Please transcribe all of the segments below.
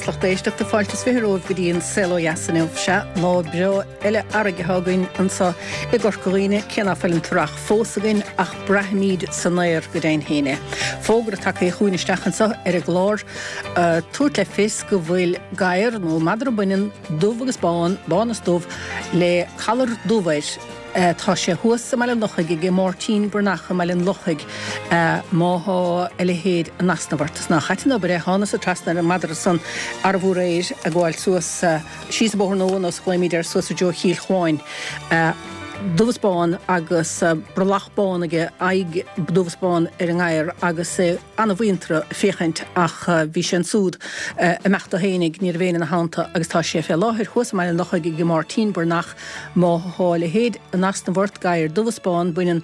agus lucht éisteachta, fáilte is 20 romhaibh go dtí an Saol Ó Dheas inniu. Sea, lá breá eile earraigh atá againn anseo i gCorca Dhuibhne, cé ná fuil an t-earrach fós againn ach braithimid san aer go deimhin féin é. Fógra tagtha chugainn isteach anseo ar an gclár ag tabhairt le fios go bhfuil gadhar nó madra baineann dubh agus bán, bán is dubh, le collar dubh air. Tá sé thuas i mBaile an Lochaigh aige Máirtín Breathnach i mBaile an Lochaigh má thá a leithéid in easnamh ort. Is nách ait an obair é, thánasa trasna ar an madra san arbh aréir ag gabháil suas, síos an Bóthar Nua nós a ghlaoimíd air, suas i dtreo Chill Chuáin. Dubh is bán agus brollach bán aige, aghaidh dubh is bán ar an ngadhar agus é ana-mhuinteartha féachaint ach bhí sé ansúd ag imeacht dó fhéinig, ní raibh éinne ina theannta agus tá sé fé láthair thuas i mBaile an Lochaigh aige Máirtín Breathnach. Má thá a leithéid in easnamh ort, gadhar dubh is bán, baineann,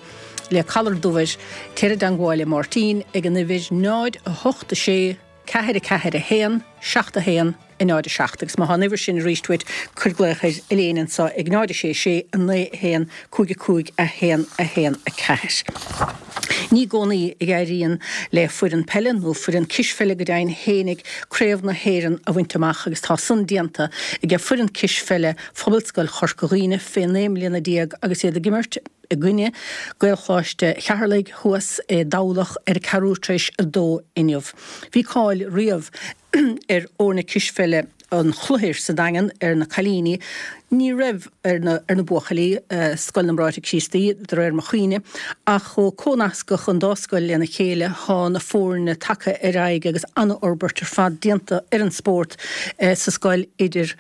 le collar dubh air, téir i dteangmháil le Máirtín ag an uimhir 0, 8, 6, 4, 4, 1, 7, 1, 0, 7. Agus má thá an uimhir sin arís uait, cuir glaoch ar Elaine anso ag 0, 6, 6, 9, 1, 5, 5, 1, 1, 4. Ní i gcónaí a éiríonn le foireann peile, nó foireann cispheile go deimhin fhéinig, Craobh na hÉireann a bhaint amach agus tá san déanta aige foireann cispheile Phobalscoil Chorca Dhuibhne fé 19 mbliana agus iad ag imirt i gcoinne Gaelcholáiste Cheatharlaigh thuas i dTamhlacht ar a ceathrú tar éis a dó inniu. Bhí cáil riamh ar fhoirne cispheile an Chloichir sa Daingean ar na cailíní. Ní raibh ar na ar na buachaillí, Scoil na mBráithre Críostaí, de réir mo chuimhne, ach ó cónascadh an dá scoil lena chéile thá na foirne tagtha ar aghaidh agus an-fhorbairt ar fad déanta ar an spórt sa scoil idir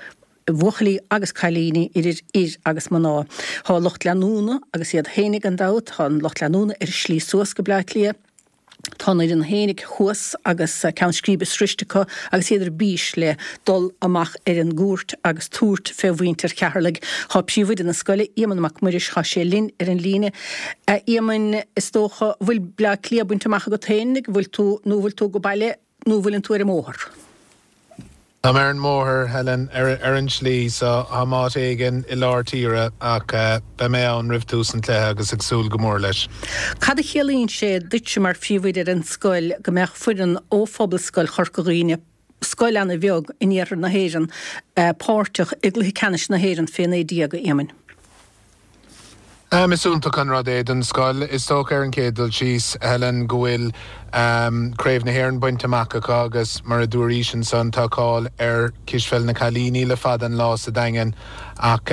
bhuachaillí agus cailíní, idir fhir agus mná. Thá lucht leanúna agus iad fhéinig gan dabht, thá an lucht leanúna ar a slí suas go Bleá Cliath. Tá an fhoireann fhéinig thuas agus ceann scríbe sroiste acu agus iad ar bís le dul amach ar an gcúirt agus tabhairt fé mhuintir Cheatharlaigh. Thá príomhoide na scoile, Éamonn Mac Muiris, thá sé linn ar an líne. A Éamoinn, is dócha, bhfuil Bleá Cliath bainte amach agat féinig, bhfuil tú, nó bhfuil tú go baile, nó bhfuileann tú ar an mbóthar? Tá mé ar an mbóthar, Helen, ar an tslí, so táim áit éigin i lár tíre ach beidh mé ann roimh tús an chluiche agus ag súil go mór leis. Cad a chiallaíonn sé duitse mar phríomhoide ar an scoil go mbeadh foireann ó Phobalscoil Chorca Dhuibhne, scoil ana-bheag in iarthar na hÉireann, páirteach i gcluiche ceannais na hÉireann fé 19, a Éamoinn? Is iontach an rud é don scoil. Is dócha ar an chéad dul síos, Helen, go bhfuil Craobh na hÉireann bainte amach acu agus mar a dúraís ansan tá cáil ar cispheil na cailíní le fada an lá sa Daingean ach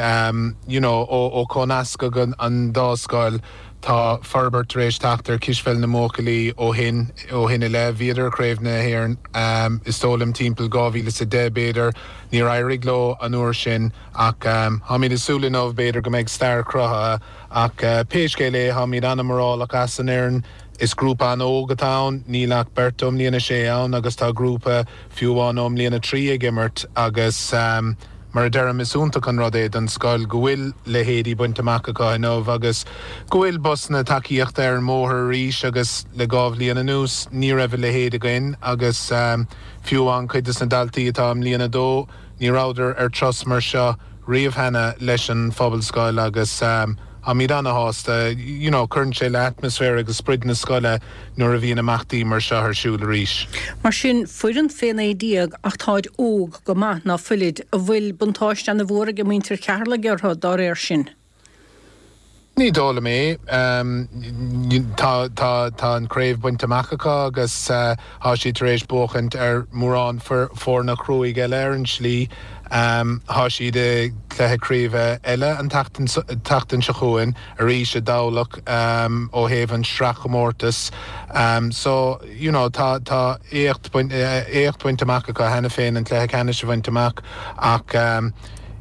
you know ó cónascadh an dá scoil tá forbairt tar éis teacht ar cispheil na mbuachaillí ó shin ó shin i leith. Bhíodar i Craobh na hÉireann is dóigh liom timpeall 2010 b'fhéidir. Níor éirigh leo an uair sin. Ach táimid ag súil inniu, b'fhéidir go mbeidh stair cruthaithe. Ach pé scéal é, táimid an-mhórálach as an fhoireann. Is grúpa an-óg atá ann, níl ach beirt ó mbliain a sé ann agus tá grúpa fiú amháin ó mbliain a 3 ag imirt agus mar a deirim, is iontach an rud é don scoil go bhfuil leithéidí bainte amach acu inniu agus go bhfuil busanna tacaíochta ar an mbóthar arís agus le dhá bhliain anuas ní raibh a leithéid againn agus fiú amháin cuid des na daltaí atá i mbliain a dó, Ní rabhadar ar turas mar seo riamh cheana leis an Phobalscoil agus táimid ana-shásta. You know, cuireann sé le atmaisféar agus sprid na scoile nuair a bhíonn imeachtaí mar seo ar siúl arís. Mar sin, foireann fé 19 ach táid óg go maith, ná fuilid? An bhfuil buntáiste ana-mhór ag muintir Cheatharlaigh orthu dá réir sin? Ní dóigh liom é. Tá, tá, tá an chraobh bainte amach acu agus tá siad tar éis buachaint ar mhórán foirne cruaidh eile ar an slí. Tá siad i gcluiche craoibhe eile an tseachtain seo chugainn arís i dTamhlacht ó thaobh an sraithchomórtas. So, you know, tá, tá éacht, éacht bainte amach acu cheana féin an cluiche ceannais a bhaint amach ach,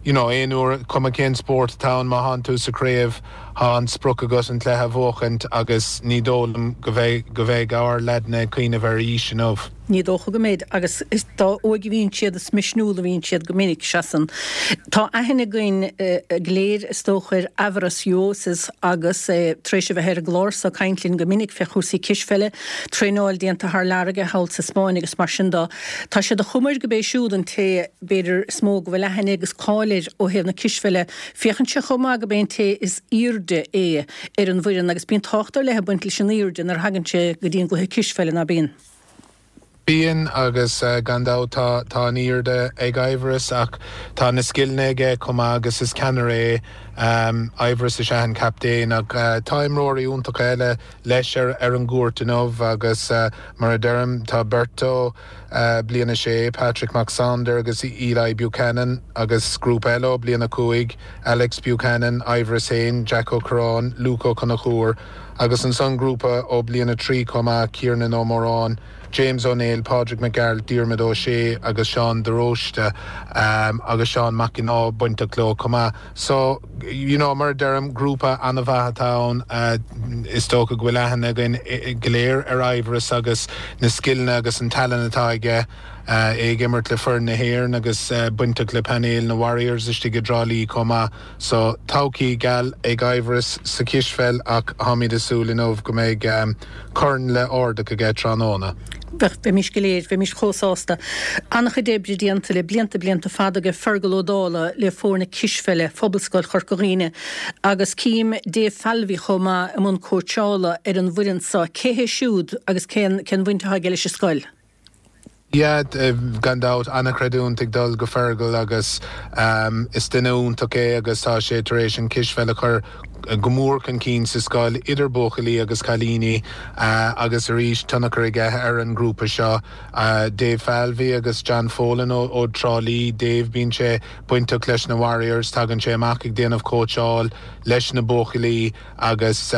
you know, aon uair, cuma cén spórt atá ann, má thánn tú sa chraobh, thá an sprioc agat an cluiche a bhuachaint agus ní dóigh liom go mbeidh, go mbeidh ár leaideanna ag cuimhneamh ar aois inniu. Ní dócha go mbeidh agus is dá óige a bhíonn siad is misniúla a bhíonn siad go minic, seasann. Tá aithne againn go léir is dócha ar Aivaras Uosis agus é tar éis a bheith ar an gclár so ag caint linn go minic fé chúrsaí cispheile, traenáil déanta thar lear aige thall sa Spáinn agus mar sin dó. Tá sé de chuma air go b'é siúd an té, b'fhéidir, is mó go bhfuil aithne agus cáil air ó thaobh na cispheile. Féachann sé chomh maith go b'é an té is aoirde é ar an bhfoireann agus bíonn tábhacht ar leith ag baint leis an aoirde nuair a thagann sé go dtí an gcluiche cispheile, ná bíonn? Bíonn, agus gan dabht tá tá an airde ag Aivaras ach tá na scileanna aige chomh maith agus is ceannaire é. Aivaras is ea an captaen ach tá imreoirí iontacha eile leis ar ar an gcúirt inniu agus mar a deirim tá beirt ó Bliain 6, Patrick Mac Sándair agus Eli Buchanan agus grúpa eile ó Bliain 5, Alex Buchanan, Aivaras féin, Jack Ó Curráin, Luke Ó Conchúir agus ansan grúpa ó Bliain 3 chomh maith, Ciarnan Ó Móráin. James Ó Néill, Pádraig Mac Gearailt, Diarmuid Ó Sé agus Seán de Róiste agus Seán Mac an Ádha bainteach leo chomh maith. So, you know, mar a deirim, grúpa an-mhaith atá ann. Is dócha go bhfuil aithne againn go léir ar Aivaras agus na scileanna agus an tallann atá aige. É ag imirt le foireann na hÉireann agus bainteach le painéal na Warriors istigh i dTrá Lí chomh maith. So, todhchaí geal ag Aivaras sa chispheil ach táimid ag súil inniu go mbeidh corn le ardach aige tráthnóna. Bheadh, bheimis go léir, bheimis chomh sásta. An-chuid oibre déanta le blianta, blianta fada ag Fergal Ó Dálaigh le foirne cispheile Phobalscoil Chorca Dhuibhne agus cím Dave Falvey chomh maith i mbun cóitseála ar an bhfoireann seo. Cé hé siúd agus cén, cén bhaint atá aige leis an scoil? Yeah, gan dabht, an-chreidiúint ag dul go Fergal agus is duine iontach é agus tá sé tar éis an cispheil a chur go mór chun cinn sa scoil, idir buachaillí agus cailíní agus arís tionchar aige ar an ngrúpa seo. Dave Falvey agus John Folan ó Trá Lí, Dave, bíonn sé bainteach leis na Warriors, tagann sé amach ag déanamh cóitseáil leis na buachaillí. agus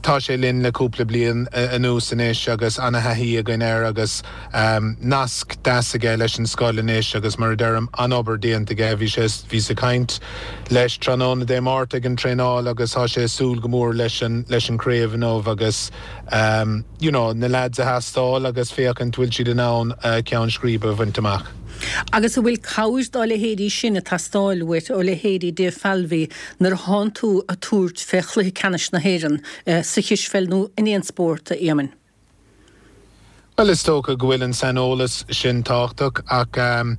tá sé linn le cúpla bliain anuas anois agus ana-thaithí againn air agus nasc deas aige leis an scoil anois agus mar a deirim, an-obair déanta aige. Bhí sé, bhíos ag caint leis tráthnóna Dé Máirt ag an traenáil agus tá sé ag súil go mór leis an, leis an craobh inniu agus you know, na lads a thástáil agus féachaint bhfuil siad in ann ceann scríbe a bhaint amach. Agus an bhfuil cabhair dá leithéidí sin ag teastáil uait, ó leithéidí Dave Falvey, nuair a thánn tú ag tabhairt fé chluiche ceannais na hÉireann sa chispheil nó in aon spórt, a Éamoinn? Bhuel, is dócha go bhfuil an saineolas sin tábhachtach ach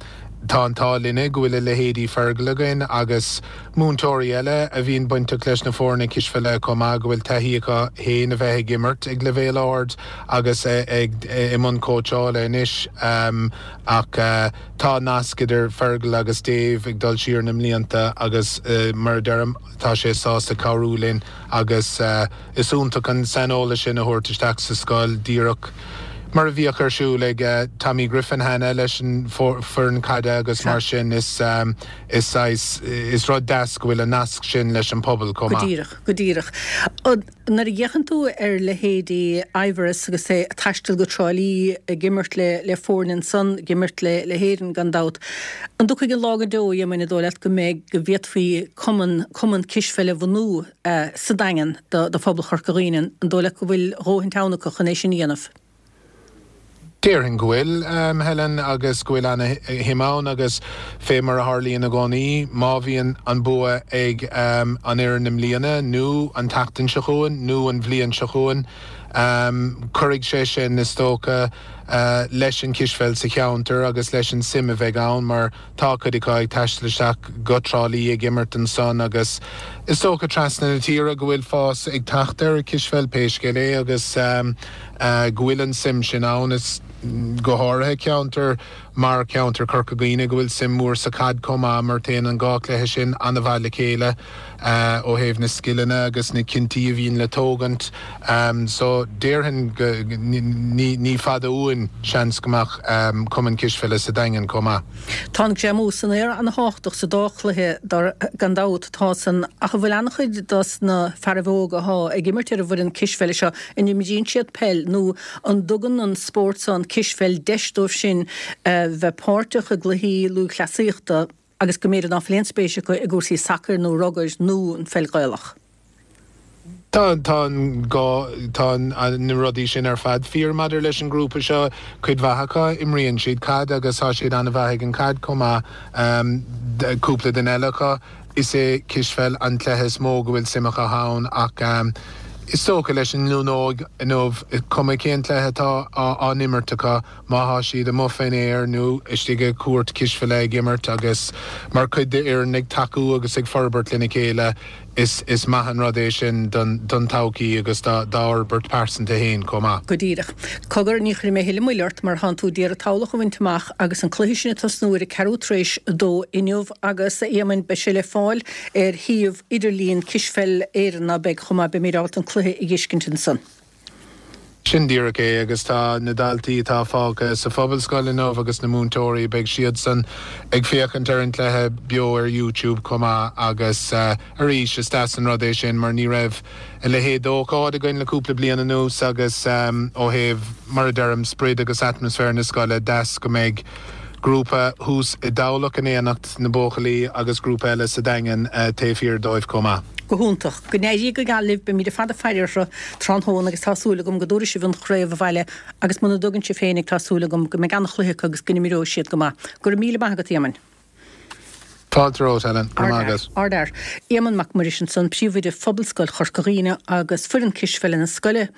tá an t-ádh linne go bhfuil a leithéidí Fergal againn agus múinteoirí eile a bhíonn bainteach leis na foirne cispheile chomh maith, go bhfuil taithí acu féin a bheith ag imirt ag leibhéal ard agus ag i mbun cóitseála anois. Ach tá nasc idir Fergal agus Dave ag dul siar na mblianta agus mar a deirim, tá sé sásta cabhrú linn agus is iontach an saineolas sin a thabhairt isteach sa scoil, díreach mar a bhíodh ar siúl ag Tommy Griffin cheana leis an foireann caide agus mar sin is is saghas, is rud deas go bhfuil an nasc sin leis an pobal chomh maith. Go díreach, go díreach. Nuair a fhéachann tú ar leithéidí Aivaras agus é ag taisteal go Trá Lí, ag imirt le le foirne ansan, ag imirt le le hÉirinn gan dabht, an dtiocfaidh an lá go deo, a Éamoinn, an dóigh leat go mbeidh, go bhféadfaí cumann, cumann cispheile a bhunú sa Daingean do do phobal Chorca Dhuibhne, an dóigh leat go bhfuil a dhóthain ann acu chun é sin a dhéanamh? Déarfainn go bhfuil, Helen, agus go bhfuil ana-shuim ann agus fé mar a tharlaíonn i gcónaí, má bhíonn an bua ag an fhoireann i mbliana nó an tseachtain seo chugainn nó an bhliain seo chugainn, cuirfidh sé sin, is dócha, leis an chispheil sa cheantar agus leis an suim a bheidh ann mar Tá cuid acu ag taisteal isteach go Trá Lí ag imirt ansan agus is dócha trasna na tíre go bhfuil fás ag teacht ar an chispheil pé scéal é agus go bhfuil an suim sin ann. Is go háirithe ceantar mar cheantar Chorca Dhuibhne go bhfuil suim mhór sa chaid chomh maith mar téann an dhá chluiche sin an-mhaith le chéile ó thaobh na scileanna agus na cinntí a bhíonn le tógaint. So déarfainn go ní fada uainn seans go mbeadh cumann cispheile sa Daingean chomh maith. Tá an greamú san aer an-thábhachtach sa dá chluiche gan dabht, tá san, ach an bhfuil an-chuid dos na fearaibh óga athá ag imirt ar an bhfoireann cispheile seo, an imríonn siad peil nó an dtugann an spórt seo, an cispheil, deis dóibh sin bheith páirteach i gcluichí lúthchleasaíochta agus go mb'fhéidir ná fuil aon spéis acu i gcúrsaí sacair nó rugair nó an pheil Ghaelach? Tá, tá an gá, tá na rudaí sin ar fad fíor maidir leis an ngrúpa seo. Cuid mhaith acu, imríonn siad caid agus tá siad an-mhaith ag an chaid chomh maith. Cúpla duine eile acu, is é cispheil an cluiche is mó go bhfuil suim acu ann ach is dócha leis an nglúin óg inniu, cuma cén cluiche atá á n-imirt acu, má thá siad amuigh fén aer nó istigh i gcúirt cispheile ag imirt agus mar chuid d'fhoireann ag tacú agus ag forbairt lena chéile. Is is maith an rud é sin don don todhchaí agus dá dá fhorbairt pearsanta féin chomh maith. Go díreach. Cogar, ní chuirfidh mé a thuilleadh moille ort mar thánn tú d'iarraidh Tamhlacht a bhaint amach agus an cluiche sin ag tosnú ar a ceathrú tar éis a dó inniu agus, a Éamoinn, beidh sé le fáil ar shuíomh idirlíon Cispheil Éireann, ná beidh, chomh maith, beimid ábalta an cluiche a dh'fheiscint ansan. Sin díreach é, agus tá na daltaí atá fágtha sa Phobalscoil inniu agus na múinteoirí, beidh siadsan ag féachaint ar an gcluiche beo ar YouTube chomh maith agus arís, is deas an rud é sin mar ní raibh a leithéid d'ócáid againn le cúpla bliain anuas agus ó thaobh, mar a deirim, sprid agus atmaisféar na scoile, deas go mbeidh grúpa thuas i dTamhlacht in éineacht na buachaillí agus grúpa eile sa Daingean taobh thiar dóibh chomh maith. Go hiontach. Go n-éirí go geal libh, beimid ar fad ag faire orthu tráthnóna agus tá súil agam go dtabharfaidh sibh an chraobh abhaile agus muna dtugann sibh féinig tá súil agam go mbeidh an-chluiche acu agus go n-imreoidh siad go maith. Go raibh míle maith agat, Éamoinn. Fáilte romhat, Helen. Go raibh maith agat. Ardfhear. Éamonn Mac Muiris ansan, Príomhoide Phobalscoil Chorca Dhuibhne agus foireann cispheile na scoile,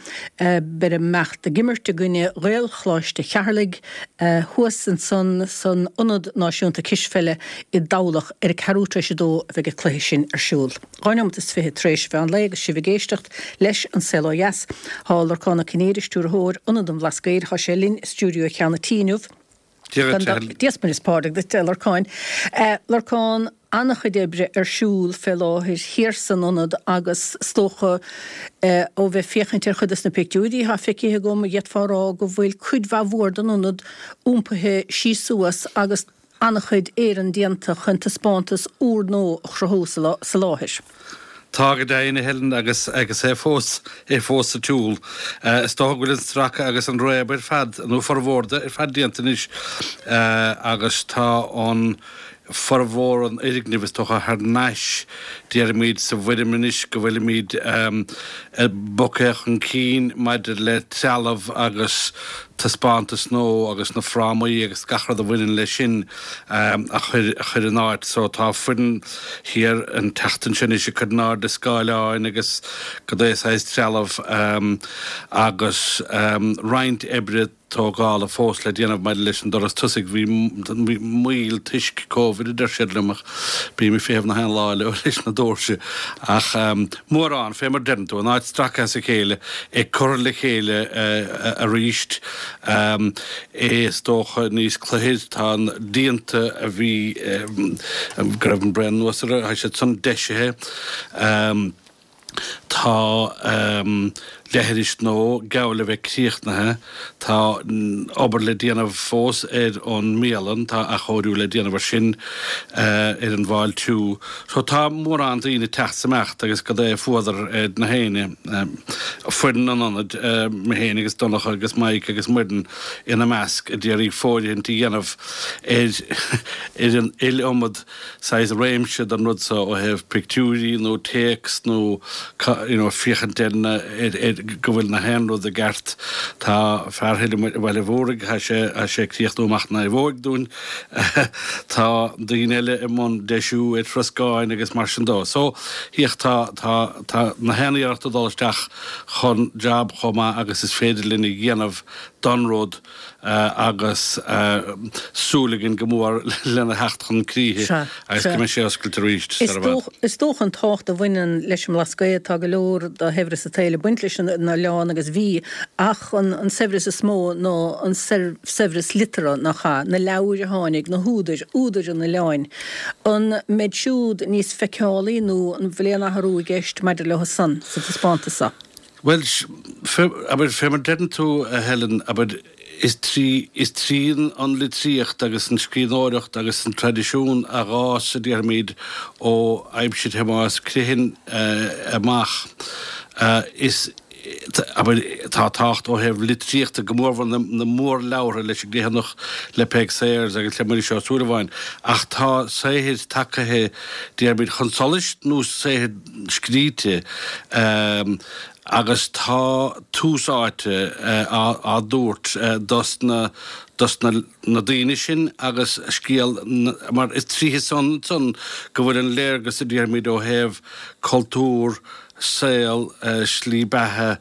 beir imeacht ag imirt i gcoinne Ghaelcholáiste Cheatharlaigh thuas ansan san Ionad Náisiúnta Cispheile i dTamhlacht ar a ceathrú tar éis a dó a bheidh an cluiche sin ar siúl. 2 neomat is 20 tar éis mheán lae agus sibh ag éisteacht leis An Saol Ó Dheas. Tá Lorcán Ó Cinnéide, Stiúrthóir Ionad an Bhlascaoid, tá sé linn i stiúideo Cheann an Tí inniu. Dia duit, a Helen. Dia 's Muire is Pádraig duit, a Lorcáin. Lorcán, an-chuid oibre ar siúl fé láthair thiar san ionad agus is dócha ó bheith ag féachaint ar chuid dos na pictiúirí atá feicthe agam, d'fhéadfá a rá go bhfuil cuid mhaith mhór den ionad iompaithe síos suas agus an-chuid éireann déanta chun taispeántas úrnua a chruthú sa láthair. Tá go deimhin, a Helen, agus agus é fós, é fós sa tsiúl. Is dócha go bhfuil an stracadh agus an réabadh ar fad, nó formhór de, ar fad déanta anois agus tá an formhór an fhoirgnimh, is dócha, thar n-ais, déarfaimid, sa bhfoirm anois go bhfuilimid bogtha chun cinn maidir le trealamh agus taispeántas nua agus na frámaí agus gach rud a bhaineann leis sin a chur in áit. So tá foireann thiar an tseachtain seo anois ag cur in airde scáileáin agus cad é saghas trealamh agus roinnt oibre tógála fós le déanamh maidir leis an doras tosaigh. Bhí moill toisc Covid a deir siad liom ach bím ag feitheamh na haon lá leo leis na doirse ach mórán, fé mar deireann tú, an áit stractha as a chéile, ag cur le chéile arís. É is dócha níos cluichir, tá na díonta a bhí, go raibh an braon anuas orthu, tá siad san deisithe. Tá leithris nua geall le bheith críochnaithe. Tá obair le déanamh fós ar an mbialann, tá athchóiriú le déanamh ar sin, ar an bhfáiltiú. So tá mórán daoine ag teacht 's imeacht agus cad é fuadar ar na héinne, foireann an ionaid, mé féin agus Donncha agus Mike agus Muireann ina measc, a d'iarraidh fóirithint a dhéanamh ar ar an iliomad saghas réimse den rud so ó thaobh pictiúirí nó téacs nó you know féachaint ar na ar ar go bhfuil na haon rud i gceart. Tá fear thoir i mBaile Mhúraigh, tá sé tá sé ag críochnú amach an naomhóig dúinn. Tá daoine eile i mbun deisiú ar throscáin agus mar sin dó. So féach tá tá tá na haon iarracht ag dul isteach chun jab chomh maith agus is féidir linn a dhéanamh don rud agus súil againn go mór lena theacht chun críche agus go mbeidh sé oscailte arís sar i bhfad. Is dócha an tábhacht a bhaineann leis an mBlascaod, tá go leor de shaibhreas an tsaoil ag baint leis an oileán agus bhí, ach an saibhreas is mó ná an saibhreas liteartha, nach ea? Na leabhair a tháinig, na húdair, údair an oileáin. An mbeidh siúd níos feiceálaí nó an bhfuil aon athrú i gceist maidir leo san sa taispeántas seo? Bhuel, abair, fé mar deireann tú, a Helen, abair, is trí, is trí an litríocht agus an scríbhneoireacht agus an traidisiún a dh'fhás, a déarfaimid, ó aimsir Thomáis Criomhthain amach, is, abair, tá tábhacht ó thaobh litríochta, go mórmhór na, na mórleabhartha leis an gCriomhthanach, le Peig Sayers agus le Muiris Ó Súilleabháin, ach tá saothair tagaithe, déarfaimid, chun solais nó saothair scríte agus tá tús áite á dtabhairt dos na dos na na daoine sin agus scéal mar is tríothu san ansan go bhfuil an léargas a déarfaimid ó thaobh cultúr, saol, slí beatha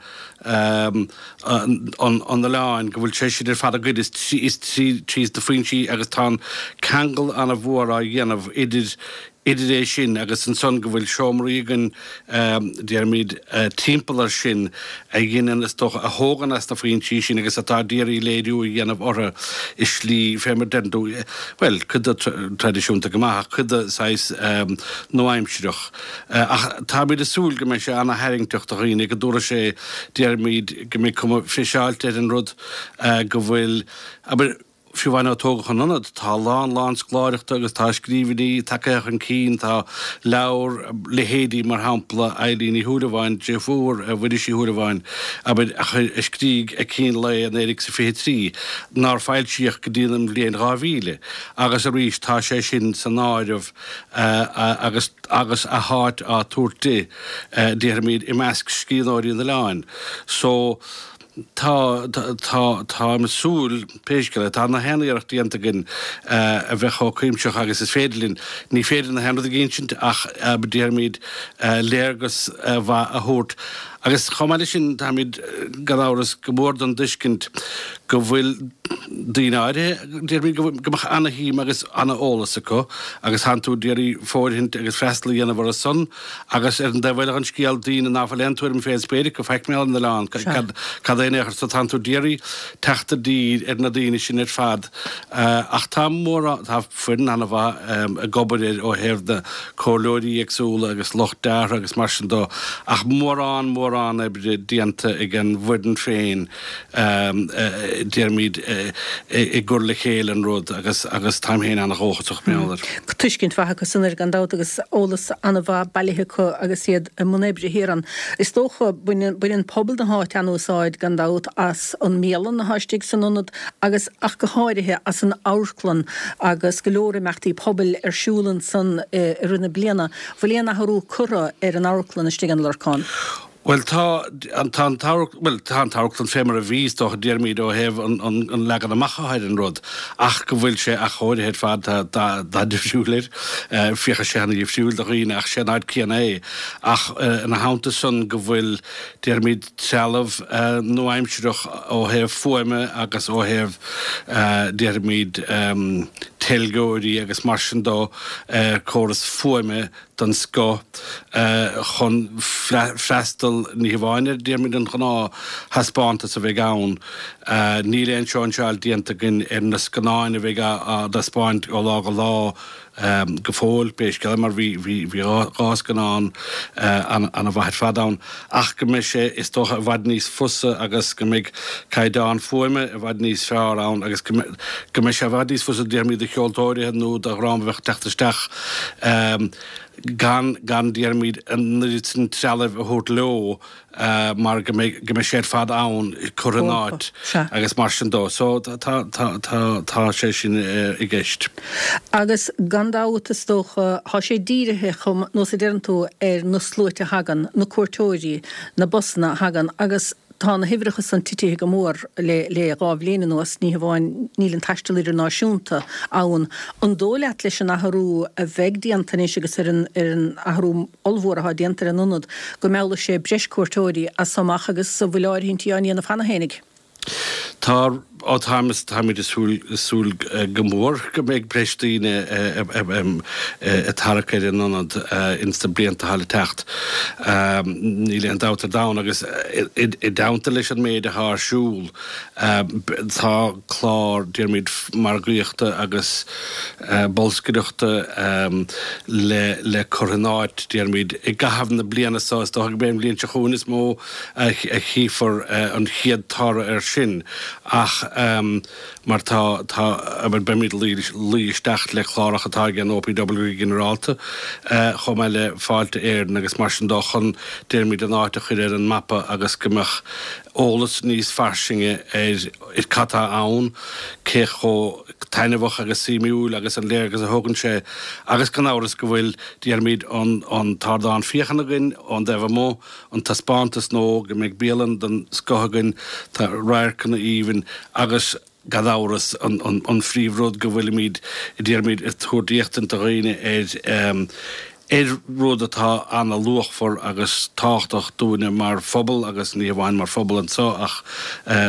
an oileáin go bhfuil sé sin ar fad againn is is trí na foinsí agus tá an ceangal ana-mhór á dhéanamh idir. Idir é sin agus ansan go bhfuil seomraí againn, déarfaimid, timpeall air sin a dheineann, is dócha, a thógann as na foinsí sin agus atá d'iarraidh léiriú a dhéanamh orthu i slí, fé mar a deireann tú, bhuel, cuid de traidisiúnta go maith ach cuid de saghas nua-aimsireach. Ach táimid ag súil go mbeidh sé ana-tharraingteach do dhaoine, go dtabharfaidh sé, déarfaimid, go mbeidh cuma friseáilte ar an rud, go bhfuil, abair, Fiú amháin ó tógadh an t-ionad, tá a lán lán scoláireachta agus tá scríbhinní tagtha chun cinn, tá leabhar, leithéidí mar shampla Eilín Ní Shúilleabháin, deirfiúr Mhuiris Uí Shúilleabháin, abair, a chuir, a scrígh ag cín lae 1923, nár foilsíodh go dtí an bhliain 2000, agus arís tá sé sin san áireamh agus agus a háit á tabhairt di, déarfaimid, i measc scríbhneoirí an oileáin. So. Tá, tá, táim ag súil, pé scéal é, tá na haon iarracht déanta againn a bheith chomh cuimsitheach agus is féidir linn. Ní féidir na haon rud a insint ach déarfaimid léargas mhaith a thabhairt. Agus chomh maith leis sin, táimid, gan amhras, go mór den dtuiscint go bhfuil daoine áirithe, déarfaimid, go mbeadh ana-shuim agus ana-eolas acu agus tánn tú d'iarraidh fóirithint agus freastal a dhéanamh orthu san. Agus ar an dtaobh eile den scéal, daoine ná fuil aon tuairim fén spéir acu faic mar gheall ar an oileán, cad é in aon chor, so tánn tú d'iarraidh teacht i dtír ar na daoine sin ar fad. Ach tá mórán, tá foireann ana-mhaith ag obair air ó thaobh na comhairleoirí éagsúla agus lucht deartha agus mar sin dó, ach mórán, mórán oibre déanta ag an bhfoireann féin. déarfaimid, i gcur le chéile an rud agus agus táim féin ana-dhóchasach mar gheall air. Tuiscint mhaith acu san air gan dabht agus eolas ana-mhaith bailithe acu agus iad i mbun oibre thiar ann. Is dócha, baineann baineann pobal na háite an-úsáid gan dabht as an mbialann atá istigh san ionad agus ach go háirithe as an amharclann agus go leor imeachtaí pobail ar siúl ansan i rith na bliana. Bhfuil aon athrú curtha ar an amharclann istigh in Lorcán? Bhuel, tá an, tá an t-amharc, bhuel, tá an t-amharclann fé mar a bhí, is dócha, déarfaimid, ó thaobh an, an, an leagan amach atá ar an rud, ach go bhfuil sé athchóirithe ar fad, tá dath, dath difriúil air, féachfaidh sé ana-dhifriúil do dhaoine ach sé an áit céanna é. Ach ina theannta san go bhfuil, déarfaimid, trealamh nua-aimsireach ó thaobh fuaime agus ó thaobh, déarfaimid, teilgeoirí agus mar sin dó, córas fuaime, den scoth chun freastal ní hamháin ar, déarfaimid, an gnáth-thaispeántas a bheidh ann. Níl aon sóinseáil déanta againn ar na scannáin a bheidh á dtaispeáint ó lá go lá go fóill, pé scéal é, mar bhí dhá scannán ana-mhaith ar fad ann. Ach go mbeidh sé, is dócha, i bhfad níos fusa agus go mbeidh caighdeán fuaime i bhfad níos fearr ann agus go mbeidh sé i bhfad níos fusa, déarfaimid, do cheoltóirithe nó do dhream a bheadh ag teacht isteach gan, gan, déarfaimid, an oiread sin trealaimh a thabhairt leo mar go mbeidh, go mbeidh sé ar fad ann, curtha in áit agus mar sin dó. So tá, tá, tá, tá sé sin i gceist. Agus gan dabht, is dócha, tá sé dírithe, chomh, nós a deireann tú, ar na sluaite a thagann, na cuairteoirí, na busanna a thagann agus tá na huimhreacha san titithe go mór le le dhá bhliain anuas, ní hamháin níl an taisteal idirnáisiúnta ann. An dóigh leat leis an athrú a bheidh déanta anois agus ar an ar an athrú ollmhór atá déanta ar an ionad go meallfaidh sé breis cuairteoirí as so amach agus an bhfuil áirithintí á ndéanamh cheana fhéinig? Tá, ó táim, táimid ag súil, súil go mór go mbeidh breis daoine ag tarrac ar an ionad ins na blianta atá le teacht. Níl aon dabht ar domhan agus i dteannta leis an méid atá ar siúl, tá clár, déarfaimid, margaíochta agus bolscaireachta le le cur in áit, déarfaimid, i gcaitheamh na bliana seo. Is dócha gurb é an bhliain seo chugainn is mó a chífear an chéad toradh air sin ach mar tá, tá, abair, beimid ag luí isteach le cláracha atá ag an OPW go ginearálta chomh maith le Fáilte Éireann agus mar sin dó chun, déarfaimid, an áit a chur ar an mapa agus go mbeadh eolas níos fairsinge ar cad tá ann, cé chomh taitneamhach agus suimiúil agus an léargas a thugann sé agus gan amhras go bhfuil, déarfaimid, an t-ardán féachana againn ón dtaobh amuigh. an taispeántas nó go mbeidh bialann den scoth againn, tá radharcanna aoibhinn agus gan amhras an phríomh rud go bhfuilimid, déarfaimid, ag tabhairt éachtaint do dhaoine ar. Ar rud atá ana-luachmhar agus tábhachtach dúinne mar phobal agus ní hamháin mar phobal anseo ach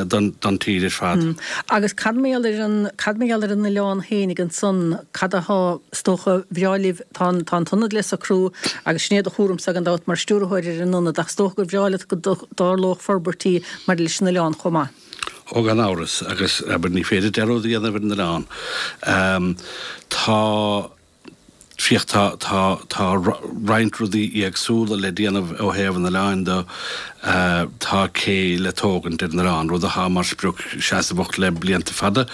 don tír ar fad. Agus cad mar gheall ar an, cad mar gheall ar an oileán fhéinig ansan, cad atá, is dócha, bhreá libh, tá an, tá an t-ionad le socrú agus sin é do chúramsa gan dabht mar stiúrthóir ar an ionad ach is dócha gur bhreá leat go dtarlódh forbairtí maidir leis an oileán chomh maith. Ó gan amhras, agus abair ní féidir dearúd a dhéanamh ar an oileán. Tá. Féach, tá, tá, tá roinnt rudaí éagsúla le déanamh ó thaobh an oileáin de. Tá cé le tógaint ar an oileán, rud atá mar sprioc seasmhach le blianta fada.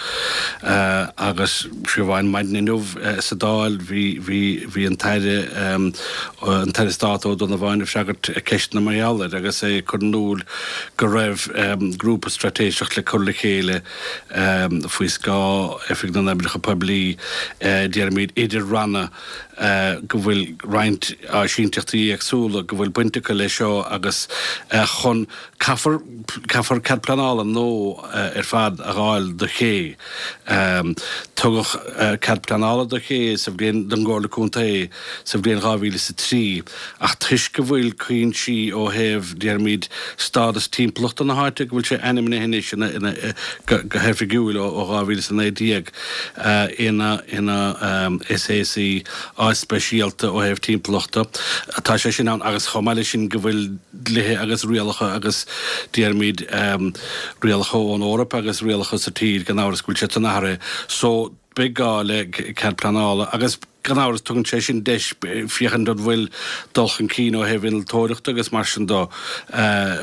Agus fiú amháin maidin inniu sa Dáil bhí, bhí, bhí an tAire, an tAire Stáit Ó Donnabháin ag freagairt ceisteanna mar gheall air agus é ag cur in iúl go raibh grúpa straitéiseach le cur le chéile Faoi scáth Oifig na nOibreacha Poiblí, déarfaimid idir ranna, go bhfuil roinnt áisínteachtaí éagsúla go bhfuil baint acu leis seo agus chun, caithfear, caithfear cead pleanála nua ar fad a dh'fháil do ché. Tugadh cead pleanála do ché sa bhliain, don gComhairle Contae sa bhliain 2003 ach toisc go bhfuil cuinsí ó thaobh, déarfaimid, stádas timpeallachta na háite, go bhfuil sé ainmnithe anois ina, ina, go, go hoifigiúil ó 2019 ina, ina SAC, áit speisialta ó thaobh timpeallachta, tá sé sin ann agus chomh maith leis sin go bhfuil dlíthe agus rialacha agus, déarfaimid, rialacha ón Eoraip agus rialacha sa tír, gan amhras go bhfuil siad san athraithe. So, beidh gá le cead pleanála agus gan amhras tugann sé sin deis féachaint an bhfuil dul chun cinn ó thaobh innealtóireachta agus mar sin de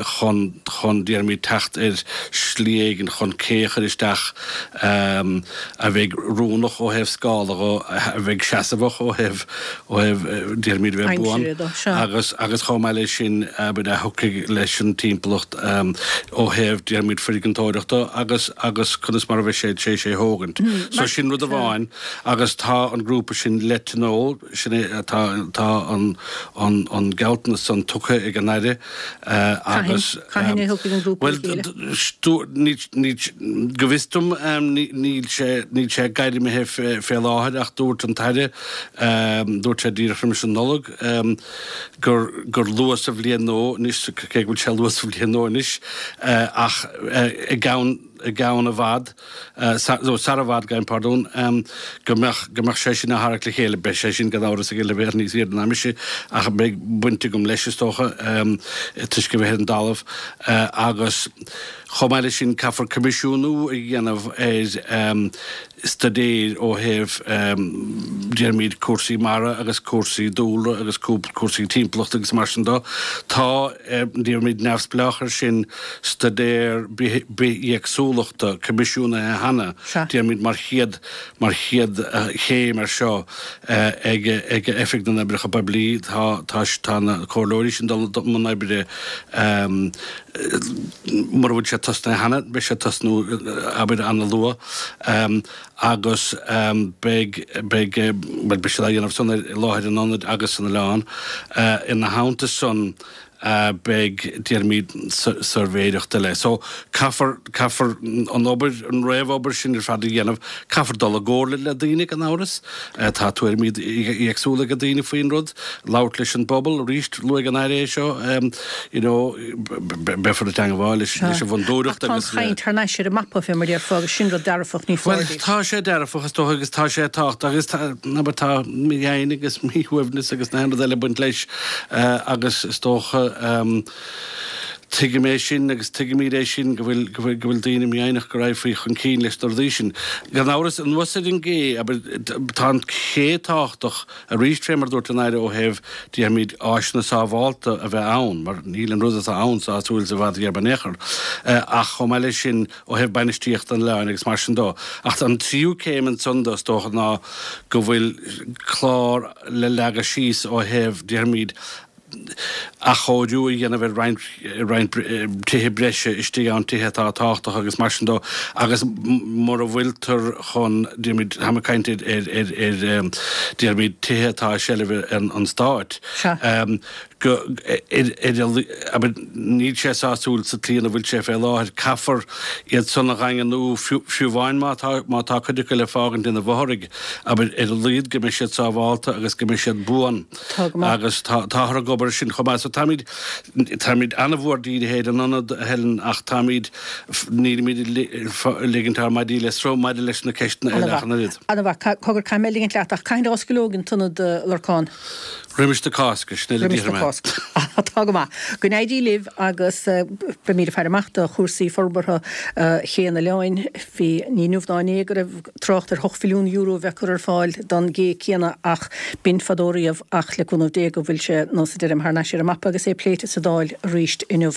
chun, chun, déarfaimid, teacht ar shlí éigin chun cé a chur isteach a bheidh oiriúnach ó thaobh scála dho, a bheidh seasmhach ó thaobh, ó thaobh, déarfaimid, a bheith buan agus, agus chomh maith leis sin, abair, a thiocfaidh leis an timpeallacht ó thaobh, déarfaimid, foirgeantóireachta agus, agus conas mar a bheidh sé tar éis é thógaint. So sin rud amháin agus tá an grúpa sin le tionól, sin é, tá, tá an, an, an gealltanas san tugtha ag an Aire agus. Cathain a thiocfaidh an grúpa le chéile? Bhuel, ní, ní, go bhfios dom níl sé, níl sé gairmithe fé láthair ach dúirt an tAire, dúirt sé díreach roimis an Nollaig gur, gur luath sa bhliain nua anois, cé go bhfuil sé luath sa bhliain nua anois, ach i gceann, i gceann i bhfad, nó sar i bhfad, gabhaim pardún, go mbeadh, go mbeadh sé sin á tharrac le chéile. Beidh sé sin gan amhras ag an leibhéal níos airde ná mise, ach beidh baint agam leis, is dócha, toisc a bheith ar an dtalamh. Agus chomh maith leis sin, caithfear coimisiúnú a dhéanamh ar staidéir ó thaobh, déarfaimid, cúrsaí mara agus cúrsaí dúlra agus cúrsaí timpeallachta agus mar sin de. Tá, déarfaimid, neamhspleách air sin, staidéar bithéagsúlachta coimisiúnaithe cheana, déarfaimid, mar chéad, mar chéad chéim air seo ag, ag Oifig na nOibreacha Poiblí. Tá, tá, tá na comhairleoirí sin dul i mbun oibre mura bhfuil sé tosnaithe cheana, beidh sé ag tosnú, abair, ana-luath agus beidh, beidh, bhuel, beidh siad á dhéanamh san ar láthair an ionaid agus san oileán. Ina theannta san, beidh, déarfaimid, suirbhéireacht eile. So, caithfear, caithfear an obair, an réamhobair sin ar fad a dhéanamh. Caithfear dul i gcomhairle le daoine, gan amhras. Tá tuairimí éagsúla ag daoine faoin rud. Labhairt leis an bpobal, arís, luaigh an Aire é seo, you know, beifear ag teangmháil leis an bhfondúireacht agus. Ach tá an chaint thar n-ais ar an mapa, fé mar a déarfá, agus sin rud dearfach, ní foláir Bhuel, tá sé dearfach, is dócha, agus tá sé tábhachtach agus tá, abair, tá mífhoighne agus míshuaimhneas agus na haon rud eile ag baint leis agus is dócha, tuigim é sin agus tuigimid é sin, go bhfuil, go bhfuil, go bhfuil daoine mífhoighneach go raghfaí chun cinn leis na rudaí sin. Gan amhras, anuas ar an gcé, abair, tá an ché tábhachtach arís, fé mar a dúirt an Aire, ó thaobh, déarfaimid, áiseanna sábhálta a bheith ann, mar níl an rud atá ann sásúil sa bhfad ghéar in aon chor, ach chomh maith leis sin, ó thaobh bainistíochta an oileáin agus mar sin dó. Ach an tríú céim ansan dó, is dócha, ná go bhfuil clár le leagadh síos ó thaobh, déarfaimid, Athchóiriú a dhéanamh ar roinnt roinnt tithe breise istigh ann, tithe atá tábhachtach agus mar sin dó, agus mura bhfuiltear chun, déarfaimid, táim ag caint ar ar ar ar déarfaimid tithe atá i seilbh an Stáit, go ar ar abair níl sé sásúil sa tslí ina bhfuil sé fé láthair, caithfear iad san a dhaingniú fiú fiú amháin má tá má tá cuid acu le fágaint ina bhfothraigh, abair ar a laghad go mbeidh siad sábhálta agus go mbeidh siad buan. Tá go maith. Agus tá, táthar ag obair ar sin chomh maith. So táimid, táimid an-mhór dírithe ar an ionad, a Helen, ach táimid, nílimid ag ligint ár maidí le sruth maidir leis na ceisteanna eile ach an oiread. An-mhaith. Cogar, caithfidh mé ligint leat, ach cathain a osclóidh an t-ionad, a Lorcáin? Roimis na Cásca, sin uile Roimis na Cásca. Tá go maith. Go n-éirí libh agus beimid ag faire amach do chúrsaí forbartha Ché an Oileáin. Bhí, ní inniu ná inné go raibh trácht ar €8 mhilliún a bheith curtha ar fáil don gcé céanna ach b'in fadó riamh ach le cúnamh Dé go bhfuil sé nós a deirim thar n-ais ar an mapa agus é pléite sa Dáil arís inniu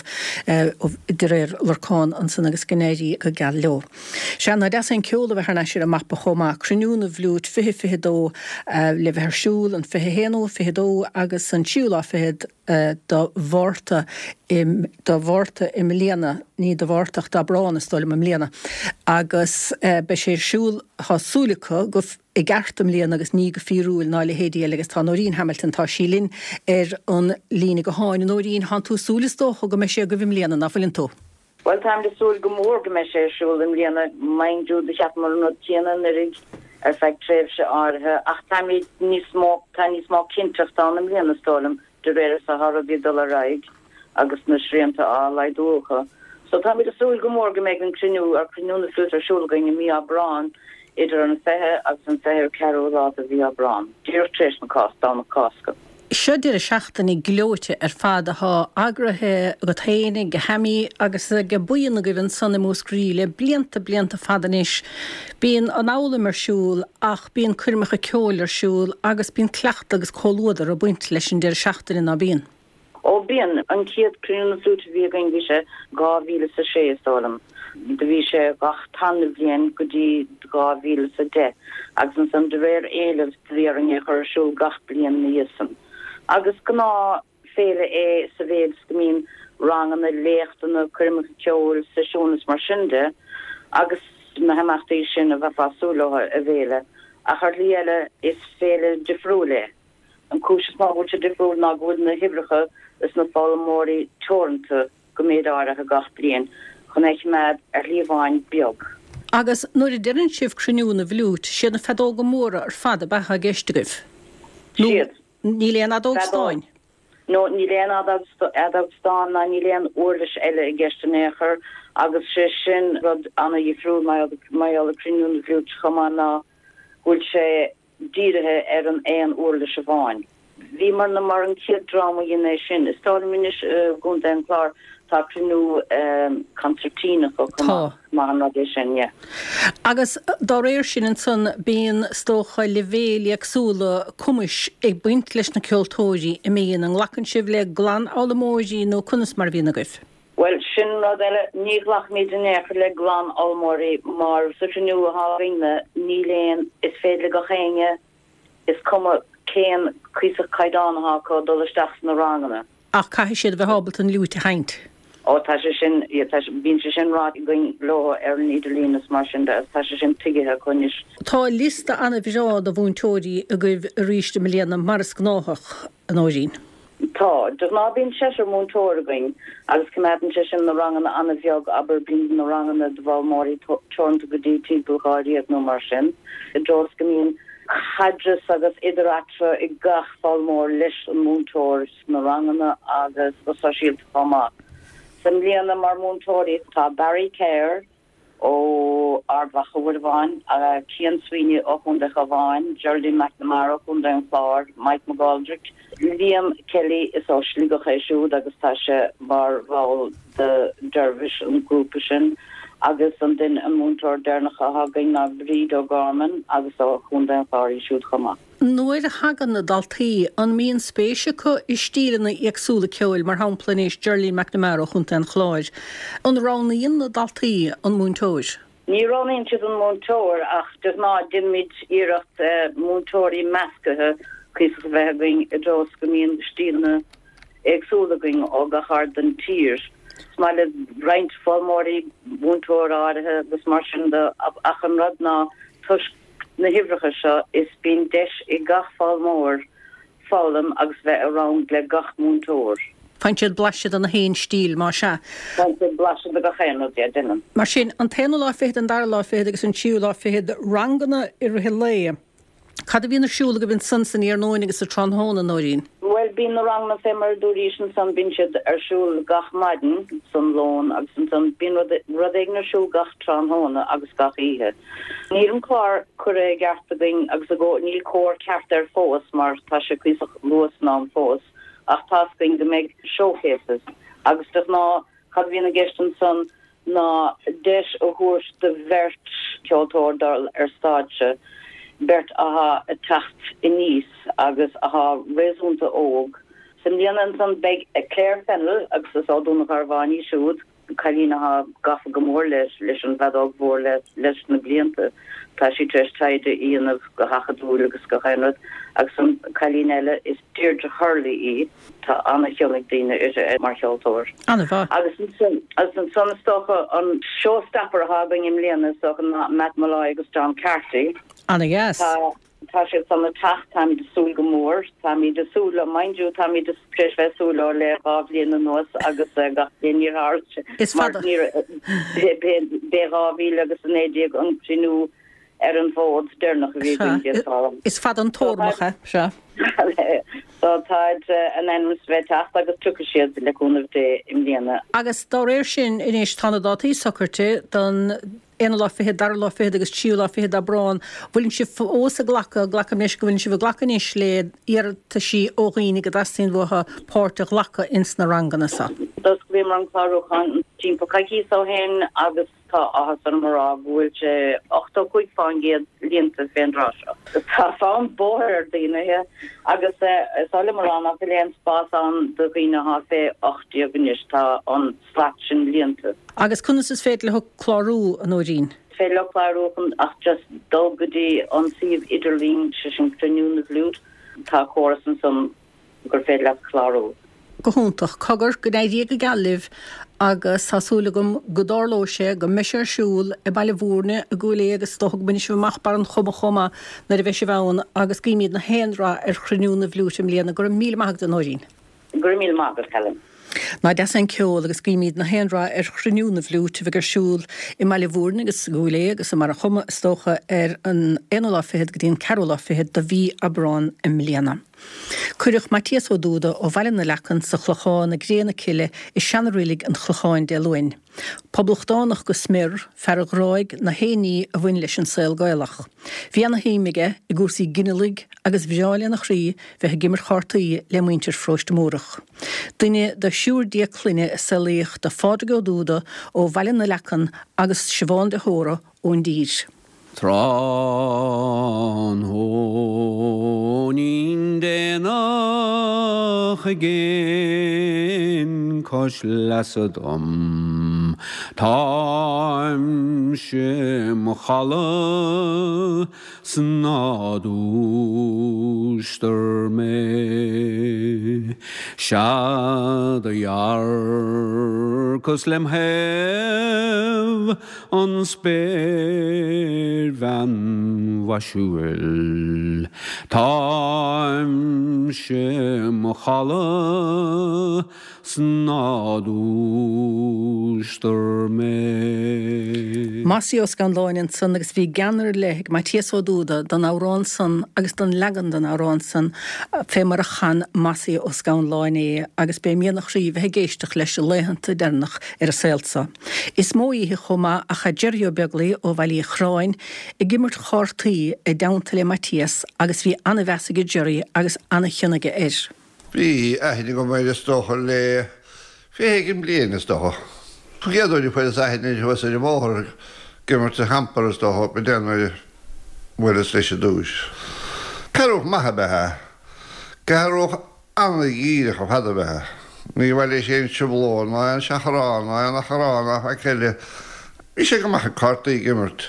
de réir Lorcán ansan agus go n-éirí go geal leo. Sea, nach deas é an ceol a bheith thar n-ais ar an mapa chomh maith, Cruinniú na bhFliúit 2022 le bheith ar siúl an 21 nó 22 agus an tríú lá fichead de Mhárta i de Mhárta i mbliana, ní de Mhárta ach d'Aibreán is dóigh liom i mbliana, agus beidh sé ar siúl, tá súil acu, go i gceart i mbliana agus ní go fíorúil ná a leithéidí eile agus tá Nóirín Hamilton, tá sí linn ar an líne gutháin. A Nóirín, thánn tú ag súil is dócha go mbeidh sé agaibh i mbliana, ná fuileann tú? Bhuel, táimid ag súil go mór go mbeidh sé ar siúl i mbliana. Mind you, do cheapamar an rud céanna anuraidh ar feadh tréimhse áirithe ach táimid níos mó, tá níos mó cinnteachta ann i mbliana is dóigh liom, de réir is atá rudaí ag dul ar aghaidh agus na srianta á laghdú acu. So táimid ag súil go mór go mbeidh an cruinniú, ar Cruinniú na Fliúite ar siúl againn i mí Aibreáin idir an 20 agus an 24ú lá de mhí Aibreáin, díreach tar éis na Cásca, Domhnach Cásca. Seo deireadh seachtaine gleoite ar fad athá eagraithe agat féin, ag Hammy agus ag buíon agaibh ansan i Múscraí le blianta, blianta fada anois. Bíonn an fhoghlaim ar siúl ach bíonn coirmeacha ceoil ar siúl agus bíonn cleachtadh agus comhluadar ag baint leis an deireadh seachtaine, ná bíonn? Ó bíonn. An chéad Cruinniú na Fliúite a bhí againn bhí sé 2006 is dóigh liom. Do bhí sé gach tarna bhliain go dtí 2010 agus ansan de réir éilimh do bhí orainn é a chur ar siúl gach bliain ina dhiaidh san. Agus gnáth féile é sa mhéid is go mbíonn ranganna, léachtanna, coirmeacha ceoil, seisiúin is mar sin de agus na himeachtaí sin a bheifeá ag súil leo i bhféile. Ach ar shlí eile is féile difriúil é. An cúis is mó go bhfuil sé difriúil ná go bhfuil na huimhreacha is na foghlaimeoirí teoranta go méid áirithe gach bliain chun é a choimeád ar shlí amháin beag. Agus nuair a deireann sibh cruinniú na bhfliút, siad na feadóga móra ar fad ab ea atá i gceist agaibh? Nó Siad. níl aon fheadóg stáin? No, níl aon fheadóg stáin ná níl aon uirlis eile i gceist in aon chor agus sé sin rud ana-dhifriúil mar gheall ar Cruinniú na bhFliúit chomh maith ná go bhfuil sé dírithe ar an aon uirlis amháin. Bhíomarna mar an chéad dream a dhein é sin. Is dóigh liom anois i gContae an Chláir tá cruinniú consairtín acu chomh maith. Maith an rud é sin, yeah. Agus dá réir sin ansan bíonn is dócha leibhéil éagsúla cumais ag baint leis na ceoltóirí a mbíonn. An nglacann sibh le glanfhoghlaimeoirí nó conas mar a bhíonn agaibh? Bhuel, sin rud eile, ní ghlacaimid in aon chor le glanfhoghlaimeoirí mar sa chruinniú atá againne níl aon, is féidir le gach éinne, is cuma cén cuíosach caighdeán atá acu, dul isteach sna ranganna. Ach caithfidh siad a bheith ábalta an fhliúit a sheinnt. Ó tá sé sin, yeah, tá sé, bíonn sé sin ráite againn leo ar an idirlíon is mar sin de agus tá sé sin tuigthe acu anois. Tá liosta an-bhreá de mhúinteoirí agaibh arís i mbliana, mar is gnáthach, a Nóirín. Tá. De ghnáth bíonn seisear múinteoir againn agus coimeádann sé sin na ranganna an-bheag, abair bíonn na ranganna d'fhoghlaimeoirí teoranta go dtí timpeall dháréag nó mar sin, i dtreo is go mbíonn caidreamh agus idir-eatarthu ag gach foghlaimeoir leis an múinteoir sna ranganna agus go sóisialta chomh maith. So i mbliana mar mhúinteoirí tá Barry Kerr, ó Ard Mhacha uair amháin, Cian Sweeney ó Chontae an Chabháin, Geraldine McNamara ó Chontae an Chláir, Mike McGoldrick, Liam Kelly, is ó Shligeach é siúd agus tá sé mar bhall de Dervish, an grúpa sin, agus an duine, an múinteoir deireanach atá againn ná Bríd O'Gorman agus ó Chontae an Chláir í siúd chomh maith. Nuair a thagann na daltaí, an mbíonn spéis acu i stíleanna éagsúla ceoil, mar shampla anois Geraldine McNamara ó Chontae an Chláir, an roghnaíonn na daltaí an múinteoir? Ní roghnaíonn siad an múinteoir ach de ghnáth déanaimid iarracht múinteoirí meascaithe cuíosach a bheith againn i dtreo is go mbíonn stíleanna. Éagsúla againn ó gach aird den tír. Is maith le roinnt foghlaimeoirí múinteoir áirithe agus mar sin de ach an rud ná toisc na huimhreacha seo is bíonn deis ag gach foghlaimeoir foghlaim agus bheith i rang le gach múinteoir. Faigheann siad blaiseadh de na haon stíl, más ea. Faigheann siad blaiseadh de gach aon rud, yeah, déanann. Mar sin, an t-aonú lá fichead, an dara lá fichead agus an tríú lá fichead, ranganna i rith an lae. Cad a bhíonn ar siúl agaibh ansan san iarnóin agus sa tráthnóna, Nóirín? Bhuel, bíonn na ranganna fé mar a dúraís ansan, bíonn siad ar siúl gach maidin san lón agus ansan bíonn rud, rud éigin ar siúl gach tráthnóna agus gach oíche. Níl an clár curtha i gceart againn agus i gcó, níl cóir ceart air fós mar tá sé cuíosach luath san am fós ach tá's againn go mbeidh showcases agus de ghnáth cad a bhíonn i gceist ansan ná deis a thabhairt do bheirt cheoltóir dul ar stáitse, beirt athá ag teacht aníos agus athá réasúnta óg. Sa mbliana ansan beidh Claire Fennell, agus is ó Dún an Gharbháin í siúd, cailín athá gafa go mór leis an bhfeadóg mhór leis na blianta. Tá sí tar éis taighde a dhéanamh go hacadúil agus gach aon rud. Agus an cailín eile, is Deirdre Hurley í. Tá ana-chion ag daoine uirthi mar cheoltóir. An-mhaith. Agus ansan, agus ansan is dócha an showstopper atá againn i mbliana is dócha ná Matt Molloy agus John Carty. Ana-dheas. Tá, tá siad san ag teacht, táimid ag súil go mór. Táimid ag súil leo, mind you, táimid tar éis bheith ag súil leo le 2 bhliain anuas agus gach bliain níor tharla sé. Is fada. Mar níor, b'é 2019 an cruinniú ar an bhfód deireanach a bhí againn déarfá. Is fada an tórmach é, sea. So táid in ainm is a bheith ag teacht agus tiocfaidh siad le cúnamh Dé i mbliana. Agus dá réir sin anois tá na dátaí socraite don aonú lá fichead, dara lá fichead agus tríú lá fichead d'Aibreán. Bhfuileann sibh fós ag glacadh, glacaim leis go bhfuileann sibh ag glacadh anois le iarrataisí ó dhaoine go dteastaíonn uathu páirt a ghlacadh ins na ranganna so? D'osclaíomar an clárúchán timpeall coicíos ó shin agus Tá áthas orm a rá go bhfuil sé 85% líonta fén dtráth seo. Tá fonn bóthair ar daoine agus is oth liom a rá nach bhfuil aon spás ann do dhaoine athá fé 18 anois, tá an slat sin líonta. Agus conas is féidir leo clárú, a Nóirín? Is féidir leo clárú chun ach just dul go dtí an suíomh idirlín, sé sin Cruinniú na bhFliút, tá córas ansan gur féidir leat clárú. Go hiontach. Cogar, go n-éirí go geal libh agus tá súil agam go dtarlóidh sé, go mbeidh sé ar siúl i mBaile Bhúirne, i gCúil Aodha agus is dócha go mbainfidh sibh amach Barr an Choma chomh maith nuair a bheidh sibh ann agus guímid na haon rath ar Chruinniú na bhFliúit i mbliana. Go raibh míle maith agat, a Nóirín. Go raibh míle maith agat, Helen. Nach deas é an ceol agus guímid na haon rath ar Chruinniú na bhFliúit a bheidh ar siúl i mBaile Bhúirne agus i gCúil Aodha agus i mBarr an Choma is dócha ar an aonú lá fichead go dtí an ceathrú lá fichead de mhí Aibreán i mbliana. Cuireadh Maitias Ó Dúda ó Bhaile na Leacan sa Chlochán i gcré na cille i seana-reilig an Chlocháin Dé Luain. Poblachtánach go smior, fear a ghráigh na haon ní a bhain leis an saol Gaelach. Bhí ana-shuim aige i gcúrsaí ginealaigh agus bhreá lena chroí bheith ag imirt chártaí le muintir Pharóiste Múrach. Duine de thriúr déag clainne a saolaíodh do Phádraig Ó Dúda ó Bhaile na Leacan agus Siobhán de hÓra ón dtír. Tráthnóinín déanach i gcéin cois leasa dom, táimse im chodladh 's ná dúistar mé. Sea do dhearcas lem thaobh an spéirbhean mhaisiúil. Táimse im chodladh 's ná dúistar mé. Mossie Ó Scanláin ansan agus bhí gean ar leith ag Maitias Ó Dúda don amhrán san agus don leagan den amhrán san fé mar a chan Mossie Ó Scanláin é agus b'é mian a chroí bheith ag éisteacht leis i laethanta deireanach ar an saol so. Is mó oíche chomh maith a chaith Jerry Ó Beaglaoi ó Bhaile Uí Chorráin ag imirt chártaí i dteannta le Maitias agus bhí ana-mheas aige Jerry agus ana-chion aige air. Bhí aithne agam air is dócha le 20 éigin bliain is dócha. An chéad uair a fuaireas aithne air thuas ar an mbóthar ag imirt an hamper is dócha b'in é nuair a bhuaileas leis i dtúis. Cearrbhach maith ab ea é. Cearrbhach Ana-dhíreach ar fad ab ea é. Ní mhaith leis aon trioblóid ná aon seachrán ná aon achrann ná faic eile. Bhí sé go maith ag cártaí ag imirt.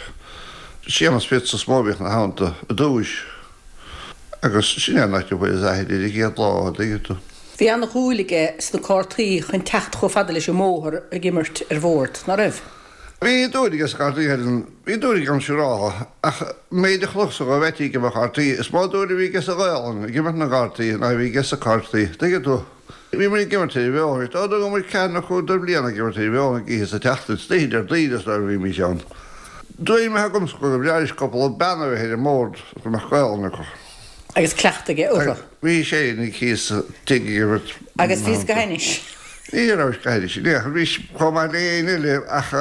Séamus Fitz is mó a bhíodh 'na theannta i dtúis. Agus sin é an áit a bhfuaireas aithne air an chéad lá, an dtuigeann tú. Bhí ana-dhúil aige sna cártaí chun teacht chomh fada leis an mbóthar ag imirt ar bhord, ná raibh? Bhí dúil aige sna cártaí, a Helen. Bhí dúil aige ann siúráltha, ach an méid a chonacsa dhó Mheaití ag imirt cártaí, is mó dúil a bhí aige sa Ghaolainn ag imirt na gcártaí ná a bhí aige sna cártaí. Tuigeann tú? Bhí muid ag imirt ar an bhóthar. Dá dtugadh muid ceathair nó cúig de bhliana ag imirt ar an bhóthar ag oíche sa tseachtain, is oíche Déardaoin is dóigh a bhímís ann. Dúil maith agamsa go mb'fhearr leis cúpla bean a bheith ar an mbord is go mbeadh Gaolainn acu. Agus cleachtadh aige orthu. Bhí sé ina thíos sa tigh ag imirt. Agus bhíos go hainnis. Ní rabhais go hainnis in aon chor. Bhís chomh maith le éinne eile ach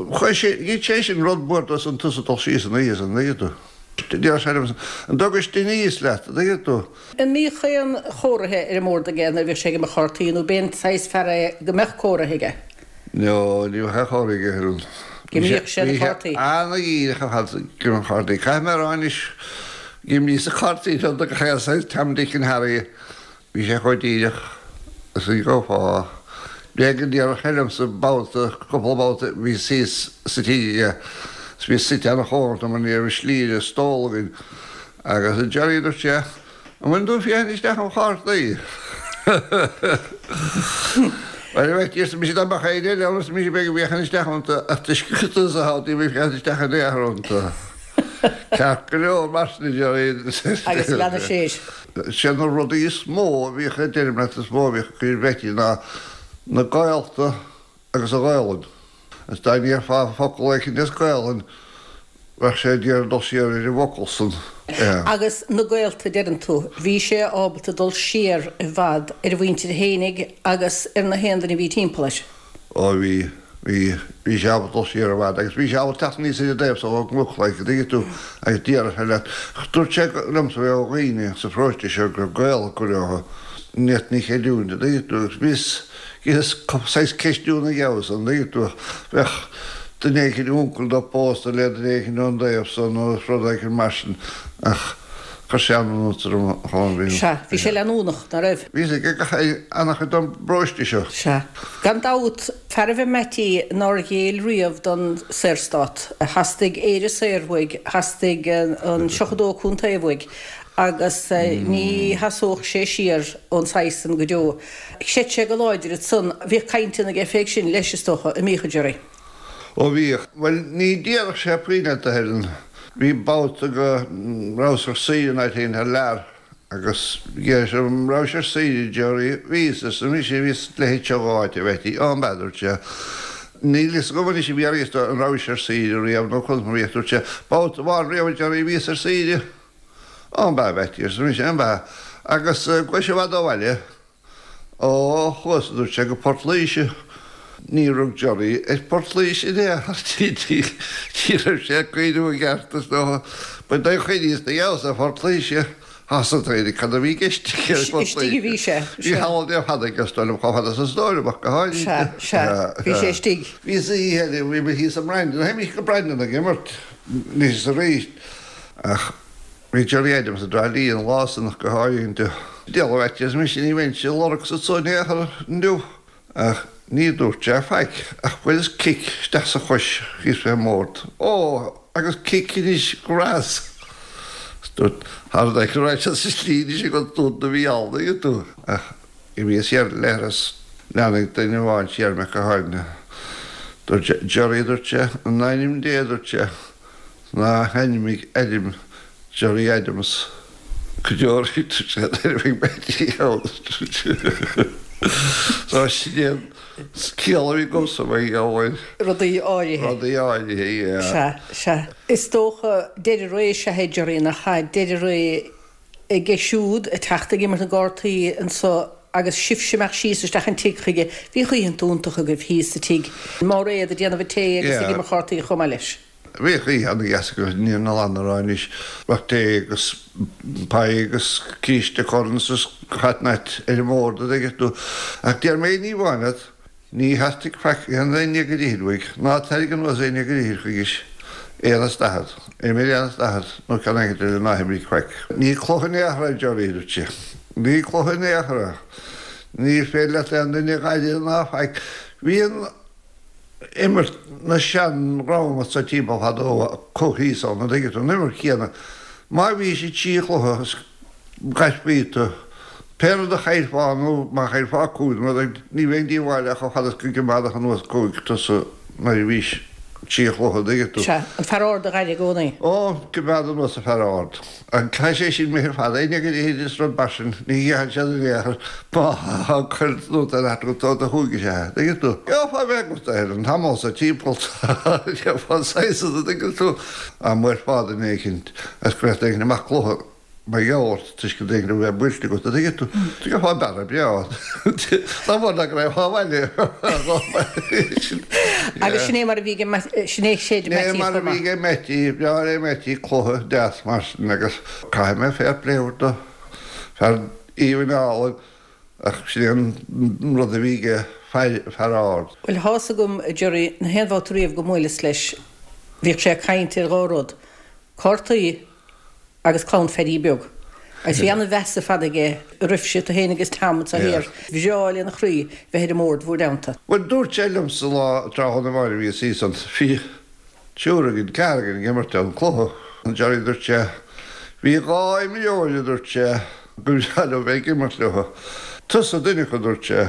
chuir sé, gheit sé sin rud mór dó san tusa dul síos an oíche san, an dtuigeann tú. Deir sé liom, an dtugais duine aníos leat, an dtuigeann tú. An mbíodh aon chomhartha ar an mbord aige nuair a bhíodh sé ag imirt chártaí nó b'én saghas fear é go mbeadh comhartha aige? No, ní bheadh aon chomhartha aige, a Helen. D'imríodh sé na cártaí. Bhí sé ana-dhíreach ar fad ag imirt cártaí. Caithfidh mé a rá anois, d'imríos-sa cártaí liom do gach aon saghas Tom, Dick and Harry. Bhí sé chomh díreach is a gheofá. B'éigean go ndéarfadh sé liomsa babhta, cúpla babhta, bhíos thíos sa tigh aige is bhíos suite ana-chóngarach dó mar ní raibh slí ar an stól againn agus a Jerry, a dúirt sé, An bhfuil tú ag féachaint isteach im chártaí? Bhuel, a Mheaití, arsa mise, dá mbeadh éinne eile ann, arsa mise, bheinn ag féachaint isteach iontu, ach toisc gur tusa atá ann, níl mé ag féachaint isteach in aon chor iontu. Ceart go leor, mar sin, a Jerry. Agus leanadh sé air. Sé na rudaí is mó a bhíodh, a deirim leat, is mó a bhíodh ag cur ar Mheaití ná na gaolta agus an Ghaolainn. Agus dá ndéarfá focal éicint as Gaolainn, bheadh sé ag iarraidh dul siar ar an bhfocal san. Agus na gaolta, deireann tú. Bhí sé ábalta dul siar i bhfad ar a mhuintir fhéinig agus ar na haon duine a bhí timpeall air. Ó bhí, bhí, bhí sé ábalta dul siar i bhfad agus bhí sé ábalta teacht aníos ar an dtaobh so ón gcnoc, like, an dtuigeann tú, agus déarfadh sé leat. Dúirt sé liomsa go raibh dhaoine sa pharóiste seo go raibh gaol acu leo, ní fhéadfainn a chreidiúint, an dtuigeann tú, agus bhíos, Is saghas ceistiú ina gheabhas, an dtuigeann tú, bheadh duine éicint, uncail dó pósta le duine éicint ón dtaobh so nó rud éicint mar sin ach chuir sé an-iontas orm chomh bhí. Sea, bhí sé leanúnach, ná raibh? Bhí fhios aige gach ana-chuid den bparóiste seo. Sea. Gan dabht, fear ab ea Meaití nár ghéill riamh don Saorstát. Theastaigh Éire saor uaidh, theastaigh an 72 contae uaidh agus ní sheasódh sé siar ón saghas san go deo. Chreid sé go láidir ansan. Bhíodh cainteanna aige fé sin leis, is dócha, an mbíodh, a Jerry? Ó bhíodh. Bhuel, ní déarfadh sé puinn leat, a Helen. Bhí babhta go rabhas ar saoire in áit éigin thar lear agus d'iarr sé orm an rabhais ar saoire, a Jerry. Bhíos, arsa mise, bhíos leithéid seo dh'áit, a Mheaití. Ó, an b'ea, dúirt sé. Níl fhios agam anois an bhfiafraíos de an rabhais ar saoire riamh nó conas mar a bhíodh. Dúirt sé, babhta amháin riamh, a Jerry, bhíos ar saoire. Ó, an b'ea, a Mheaití, arsa mise, an b'ea? Agus gabhais i bhfad ó bhaile? Ó, chuas, a dúirt sé, go Port Laoise. Níor rug Jerry ar Phort Laoise in aon chor, ní raibh sé ag cuimhneamh i gceart, is dócha. Ba é a chuimhníos na gheabhas ar Phort Laoise. Thosaigh daoine cad a bhí i gceist aige ar Phort Istigh a bhí sé. Bhí holiday fada aige, is dóigh liom, chomh fada is is dóigh liom, ach go háirithe. Sea, sea, bhí sé istigh. Bhí oíche eile, bhí mé thíos i mBrandon, théimis go Brandon ag imirt anois is arís. Ach bhí Gerry Adams i dTrá Lí an lá san ach go háirithe. Diabhal a Mheaití, arsa mise, ní bheinnse ag lorg anso in aon chor inniu. Ach ní dúirt sé faic ach bhuaileas cic isteach sa chois thíos fén mbord. Ó, agus cic anois go rabhas. Is dúirt, thar an go raibh sé sa slí anois ag an dún a bhí ann, an dtuigeann tú. Ach imíos siar leithreas leanfaidh duine amháin siar mé go háirithe. Dúirt sé, Gerry, dúirt sé, in ainm Dé, dúirt sé, Ná hainmnigh ainm Gerry Adams go deo dúirt sé nuair a bheidh Meaití ann. So sin é an ciall a bhí agamsa mar gheall ar. Rudaí áirithe. Rudaí áirithe, yeah. Sea, sea. Is dócha deireadh ré is ea é Gerry nach ea? Deireadh ré aige siúd ag teacht ag imirt na gcártaí anso agus sibhse imeacht síos isteach an tigh chuige. Bhíodh oícheanta iontacha agaibh thíos sa tigh. Máiréad ag déanamh an tae agus ag imirt chártaí chomh maith leis. Bhíodh oíche ana-dheas againn ní an lan a rá anois. Bheadh tae agus pie agus císte Corns is what not ar an mbord an dtuigeann tú. Ach déarfaidh mé ní amháin leat, ní theastaigh faic aon ní ag an ithir uaidh, ná tarraing anuas aon ní ag an ithir chuigis. Aon is daichead. Imir aon is daichead nó ceann éicint eile ná himrigh faic. Ní cluiche in aon chor é Gerry, dúirt sé. Ní cluiche in aon chor é. Ní féidir leat aon duine a ghaire ná faic. Bhí an. imirt na sean-dhream anso timpeall fadó acu thíos ann, an dtuigeann tú, an imirt chéanna. Má bhís i dtrí chluiche is gairfí tú. Pé rud a chaillfeá nó má chaillfeá cúig nó rud éigin, ní bheinn díobháileach chomh fada is go gcoimeádfadh anuas cúig tusa nuair a bhís trí chluiche, an dtuigeann tú. Sea, an fear ard a dh'aire i gcónaí. Ó, coimeád anuas an fear ard. An caithfidh sé sin mé ar fad, éinne go dtéid is rud mar sin, ní ghearrann siad in aon chor má cuir nóta ar ait agat do chúig is ea, an dtuigeann tú. Gheofá bheith agat ar an tamall sa timpeall, gheofá saghas, an dtuigeann tú, dá mbuailfeá duine éicint agus go mbeadh duine éicint amach cluiche. Mar gheall ort toisc go dtuigeann go raibh buailte agat, an dtuigeann tú? Gheofá bearradh breá. Dá mhór ná go raibh abhaile. Agus sin é mar a bhí ag, sin é séid Sin é mar a bhí ag Meaití, breá é Meaití, cluiche deas mar sin agus caithfidh mé fair play a thabhairt dó. Fear aoibhinn álainn ach sin é an rud a bhí aige, fear ard. Bhuel, tá's agam, a Gerry, na haon bhabhta riamh go mbuaileas leis, bhíodh sé ag caint ar dhá rud, cártaí agus clann Phaddy Beag. Agus bhí ana-mheas ar fad aige oraibhse, tú féin agus Tom anso thiar. Bhreá lena chroí bheith ar an mbord bhúr dteannta. Bhuel, dúirt sé liomsa lá tráthnóna amháin a bhíos thíos ann, bhí triúr againn, ceathrar againn ag imirt an cluiche. Gerry, dúirt sé, bhí dhá imreoir, a dúirt sé, go mbreá liom bheith ag imirt leo. Tusa duine acu, a dúirt sé,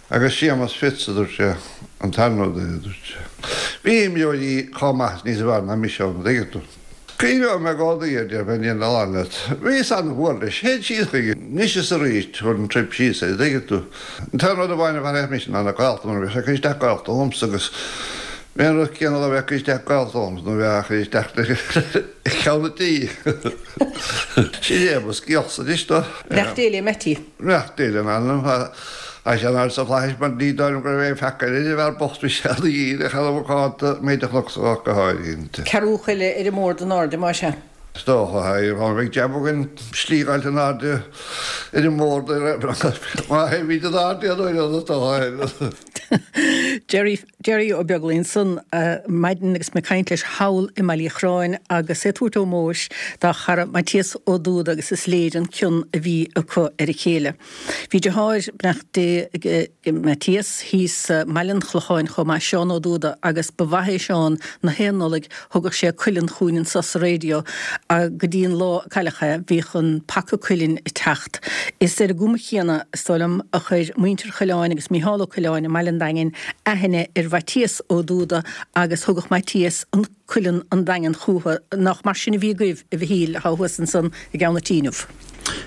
agus Séamus Fitz, a dúirt sé, an tarna duine, a dúirt sé. Bhí imreoirí chomh maith is níos fearr ná mise ann, an dtuigeann tú. Cuimhneoidh mé i gcónaí air, déarfainn, ní an leat. Bhíos an-mhór leis. Théinn síos chuige anois is arís, thabharfainn trip síos air, an dtuigeann tú. An t-aon rud amháin a mharaíodh mise ná na gaolta, mar bhíodh sé ag cur isteach gaolta dhomsa agus bhí an rud céanna dá bheadh ag cur isteach gaolta dhomsa nó bheadh á chur isteach le ceann an tí. Sin é mo scéalsa anois dó. Beannacht Dé le Mattie. Beannacht Dé lena anam. Tá sé in airde sna flaithis mar ní dóigh liom go raibh aon pheaca eile ar an bhfear bocht bhí sé ana dhíreach ana mhacánta, méid a chonacsa dhó ach go háirithe. Ceathrú choille ar an mbord in airde, más ea. Is dócha, tá beidh jab againn slí a fháilt in airde ar an mbord má théimid in airde an uair is dócha. Gerry Gerry Ó Beaglaoich ansan maidin agus mé ag caint leis thall i mBaile Uí Chorráin agus é ag tabhairt ómóis dá chara Maitias Ó Dúda agus is léir an cion a bhí acu ar a chéile. Bhí deartháir, beannacht Dé ag Maitias, thíos i mBaile an Chlocháin chomh maith, Seán Ó Dúda, agus ba mhaith é Seán na haon Nollaig thugadh sé cuileann chugainn anso sa raidió go dtí an lá a cailleadh é, bhíodh an paca cuilinn ag teacht. Is ar an gcuma chéanna, is dóigh liom, a chuir muintir Choileáin agus Micheál Ó Coileáin i mBaile an Daingin aithne ar Mhaitias Ó Dúda agus thugadh Maitias an cuileann an Daingean chúthu. Nach mar sin a bhí agaibh, a Mhichíl, atá thuas ansan i gCeann an Tí inniu?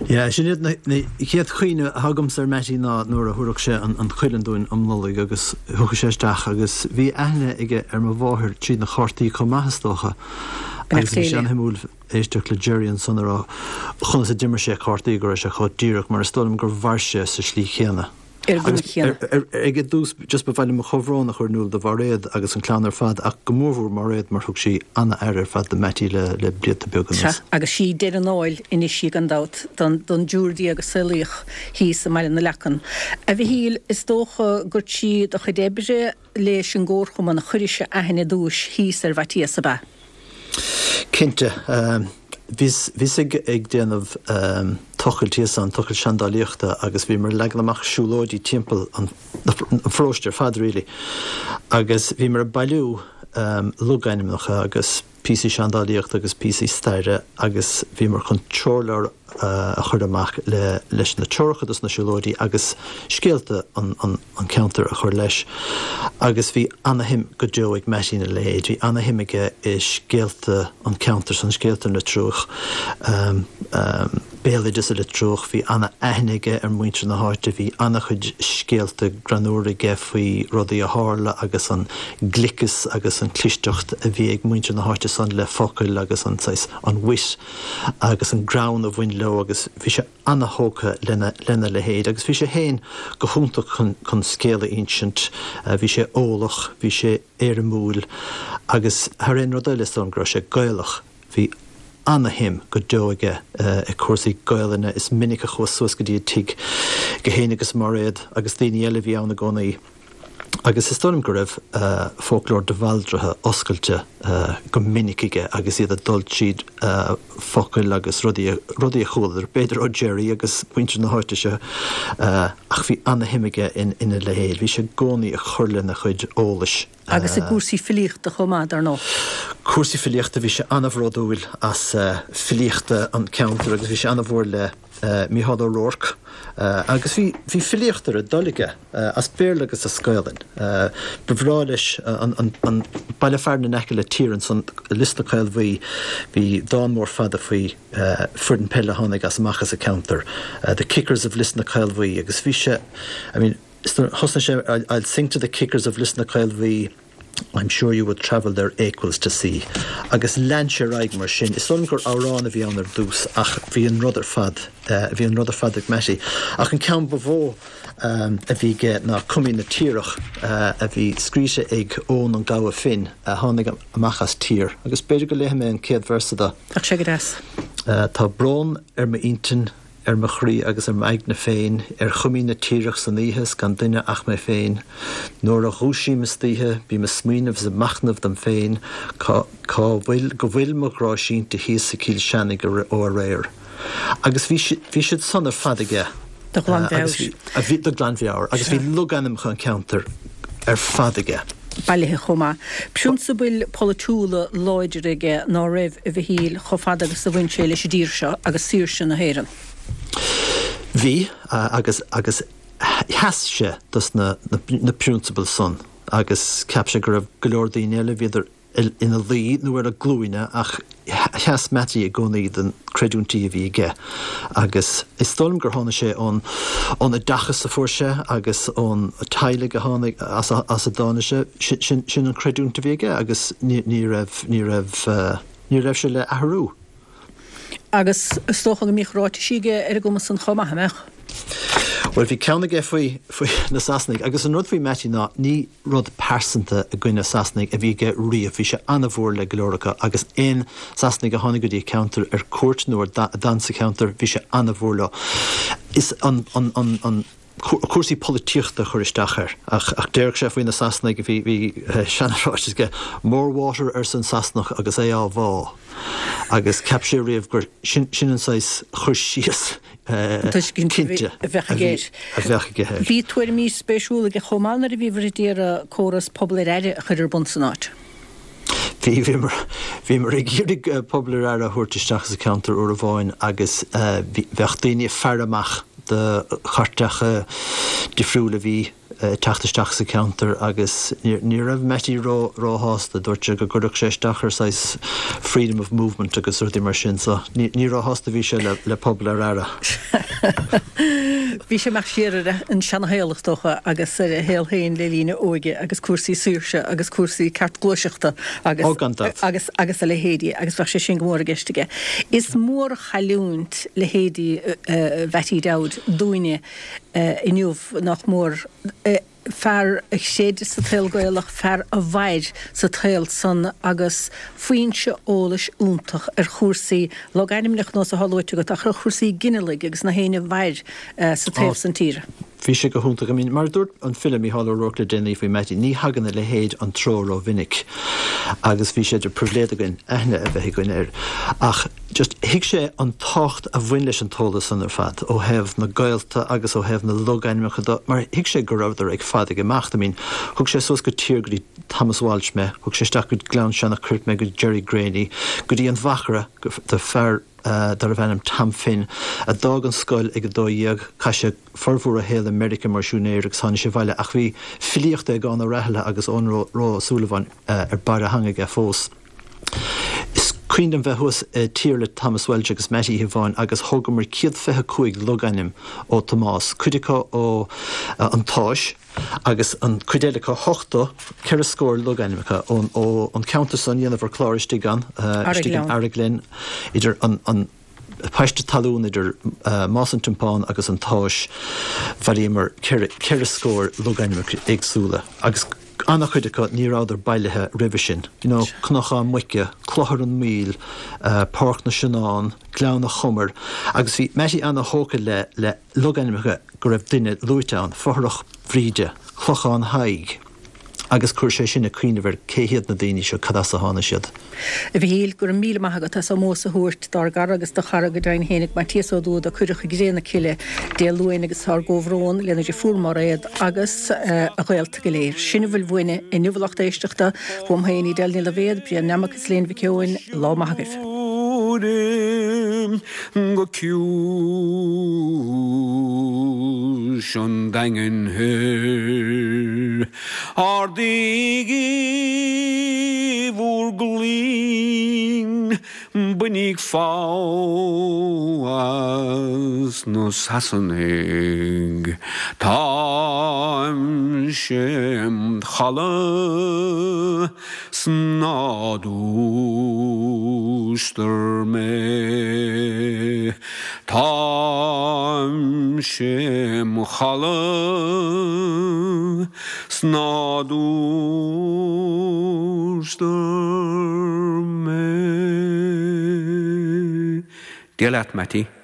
Yeah, sin iad na chéad chuimhne atá agamsa ar Mattie ná nuair a thabharfadh sé an cuileann dúinn um Nollaig agus thiocfadh sé isteach agus bhí aithne aige ar mo mháthair tríd na cártaí chomh maith is dócha agus bhí sé an-shuimiúil éisteacht le Gerry ansan ag rá conas a d'imir sé cártaí go raibh sé chomh díreach mar is dóigh liom gur mhair sé sa slí chéanna. Ar an gcuma chéanna. Ag an dtús just ba mhaith liom mo chomhbhrón a chur in iúl do Mhairéad agus an clann ar fad ach go mórmhór Mairéad mar thug sí an-aire ar fad do Mattie le le blianta beaga anuas. Sea, agus sí deireadh an áil anois í gan dabht don don dtriúr déag a saolaíodh thíos i mBaile na Leacan. A Mhichíl, is dócha gur trí do chuid oibre leis an gComharchumann a chuiris aithne i dtúis thíos ar Mhaitias, ab ea? Cinnte. Bhíos, bhíos ag, ag déanamh tochailt thíos ann, tochailt seandálaíochta agus bhíomar ag leagan amach siúlóidí timpeall an, an pharóiste ar fad really agus bhíomar ag bailiú logainmneacha agus píosaí seandálaíochta agus píosaí staire agus bhíomar chun treoirleabhar a chur amach le, leis na treoracha dos na siúlóidí agus scéalta an, an, an ceantar a chur leis. Agus bhí ana-shuim go deo ag Mattie ina leithéid. Bhí ana-shuim aige i scéalta an ceantair san, scéalta na Triúch, béaloideas na Triúch. Bhí ana-aithne aige ar mhuintir na háite. Bhí ana-chuid scéalta greannmhara aige faoi rudaí a tharla agus an gliceas agus an clisteacht a bhí ag muintir na háite san le focail agus an saghas, an wit agus an greann a bhain leo agus bhí sé ana-thógtha lena lena leithéid agus bhí sé féin go hiontach chun chun scéal a insint, bhí sé eolach, bhí sé éirimiúil agus thar aon rud eile is dóigh liom go raibh sé Gaelach, bhí ana-shuim go deo aige i cúrsaí Gaelainne, is minic a chuas suas go dtí a tigh é féin agus Mairéad agus daoine eile a bhí ann i gcónaí. Agus is dóigh liom go raibh foclóir de Bhaldraithe oscailte go minic aige agus iad ag dul tríd focail agus rudaí, rudaí a chualadar, b'fhéidir ó Gerry agus muintir na háite seo, ach bhí ana-shuim aige ina leithéid. Bhí sé i gcónaí ag cur lena chuid eolais. Agus i gcúrsaí filíochta chomh maith, dar ndóigh. Cúrsaí filíochta, bhí sé ana-bhródúil as filíochta an cheantair agus bhí sé ana-mhór le. Mícheál Ó Ruairc agus bhí, bhí filíocht ar a dtoil aige, as Béarla agus as Gaolainn. Ba bhreá leis an, an, an baile fearainn in aice le Tír ansan, Lios na Caolbhuí, bhí dán mór fada faoi foireann peile a tháinig as amach as an ceantar, The Kickers of Lios na Caolbhuí agus bhí sé, I mean, thosnaigh sé I'll sing to the kickers of Lios na Caolbhuí, I'm sure you would travel their equals to see. Agus lean sé ar aghaidh mar sin. Is dóigh liom gur amhrán a bhí ann ar dtús ach bhí an rud ar fad, bhí an rud ar fad ag Mattie. Ach an ceann ba mhó a bhí aige ná Cuimín na Tiarach a bhí scríte ag Eoin an Gabha Finn a tháinig amach as Tír. Agus b'fhéidir go léifidh mé an chéad véarsa de. Bheadh sé go deas. Tá brón ar m'intinn. ar mo chroí agus ar m'aigne féin, ar Chuimín na Tiarach san oíche 's gan duine ach mé féin. Nuair a dhúisím istoíche bím a' smaoineamh 's a' machnamh dom féin cá cá bhfuil go bhfuil mo ghrá sínte thíos i gCill Seanaigh ó aréir. Agus bhí bhí siad san ar fad aige. De ghlanmheabhair. Agus bhí de ghlanmheabhair. Agus bhí logainmneacha an cheantair ar fad aige. bailithe chomh maith. Prionsabail pholaitiúla láidre aige ná raibh, a Mhichíl, chomh fada agus a bhain sé leis an dtír seo agus saoirse na hÉireann. Bhí, agus, agus sheas sé dos na, na prionsabail san agus cheap sé go raibh go leor daoine eile, bhíodar ina luí nó ar a glúine ach sheas Mattie i gcónaí don creidiúintí a bhí aige agus is dóigh liom gur tháinig sé ón ón oideachas a fuair sé agus ón teaghlaigh a tháinig as as a dtáinig sé, sin sin an chreidiúint a bhí aige agus ní ní raibh ní raibh ní raibh sé le athrú. Agus is dócha go mbíodh ráitisí aige ar an gcuma san chomh maith, an mbeadh? Bhuel bhí ceann aige faoi faoi na Sasanaigh agus an rud faoi Mattie ná ní rud pearsanta i gcoinne Sasanaigh a bhí aige riamh. Bhí sé an-mhór le go leor acu agus aon Sasanaigh a tháinig go dtí an ceantar ar cuairt nó a d'fhan sa cheantar, bhí sé an-mhór leo. Is an, an, an, an, cúrsaí polaitíochta a chuir isteach air. Ach, ach déarfadh sé faoi na Sasanaigh, bhí, bhí seana-ráiteas aige, 'More water' arsa an Sasanach agus é á bhá. Agus cheap sé riamh gur sin, sin an saghas chur síos tuiscint cinnte a bheadh aige air. a bheadh aige air. Bhí tuairimí spéisiúla aige chomh maith nuair a bhíobhair ag iarraidh córas pobal ar aire a chur ar bun san áit. Bhí, bhíomar, bhíomar ag iarraidh pobal ar aire a thabhairt isteach sa cheantar uair amháin agus bhí, bheadh daoine ag faire amach do chairteacha difriúla a bhí ag teacht isteach sa cheantar agus ní raibh Mattie ró, róshásta. Dúirt sé go gcuirfeadh sé isteach ar saghas freedom of movement agus rudaí mar sin so ní, ní róshásta a bhí sé le, le pobal ar aire. Bhí sé ag imeacht siar ar an seanashaol is dócha agus ar a shaol féin le linn a óige agus cúrsaí saoirse agus cúrsaí ceart gluaiseachta agus, Ó gan dabht. agus, agus a leithéidí agus bheadh sé sin go mór i gceist aige. Is mórchailliúint leithéidí Mhattie Dowd dúinne inniu, nach mór. Fear a chreid sa tsaol Gaelach, fear a mhair sa tsaol san agus foinse eolais iontach ar chúrsaí logainmneacha nós atá luaite agat ach ar chúrsaí ginealaigh agus na héinne a mhair sa taobh san tíre. Bhí sé go hiontach. I mean, mar a dúirt an file Mícheál Ó Ruairc le déanaí faoi Mattie, ní thagann a leithéid an treo rómhinic agus bhí sé de pribhléid againn aithne a bheith againn air. Ach just thuig sé an tábhacht a bhain leis an t-eolas san ar fad ó thaobh na gaolta agus ó thaobh na logainmneacha de mar thuig sé go rabhadar ag fad ag imeacht. I mean, thug sé suas go Tír go dtí Thomas Walsh mé, thug sé isteach go Gleann Seanach Coirp mé go Jerry Greaney, go dtí an Mhachaire do fear darbh ainm Tom Finn a d'fhág an scoil ag 12, chaith sé formhór a shaol i Meiriceá mar siúinéir agus tháinig sé abhaile ach bhí filíocht Aogán Ó Rathaille agus Eoghan Rua Ó Súilleabháin ar barr a theanga aige fós. Is cuimhin liom bheith thuas i Tír le Thomas Walsh agus Mattie oíche amháin agus thógamar 125 logainm ó Thomás, cuid acu ó An tÁis agus an cuid eile acu, 80, ceithre scór logainm acu ón ó an ceantar san, dhéanamar clár istigh ann, istigh in Araghlen, idir an an paiste talún idir Más an Tiompáin agus An tÁis, bhailíomar ceithre scór logainmneacha éagsúla agus. An-chuid acu ní rabhadar bailithe roimhe sin. You know, Cnocán Muice, Clochar an Mhaoil, Páirc na Sionnán, Gleann a' Chomair agus bhí Mattie an-thógtha le le logainmneacha go raibh duine luaite ann, Fothrach Bhríde, Clochán Thaidhg agus chuir sé sinn ag cuimhneamh ar cé hiad na daoine seo, cad as a tháinig siad. A Mhichíl, go raibh míle maith agat as ómós a thabhairt dár gcara agus do chara go deimhin fhéinig, Maitias Ó Dúda, a cuireadh i gcré na cille Dé Luain agus ár gcomhbhrón lena dheirfiúr Mairéad agus a ghaolta go léir. Sin a bhfuil uainne inniu a lucht éisteachta, uaim féin Edel Ní Loibhéad, Brian Nammock is Léan Mhic Eoin, lá maith agaibh. Go ciumhais an Daingin Thoir. Ardaígí bhur gcloigne, bainíg fogha as na Sasanaigh. Táimse im chodladh 's ná dúistar mé. Táimse im chodladh 's ná dúistar mé. Dia leat, Mattie.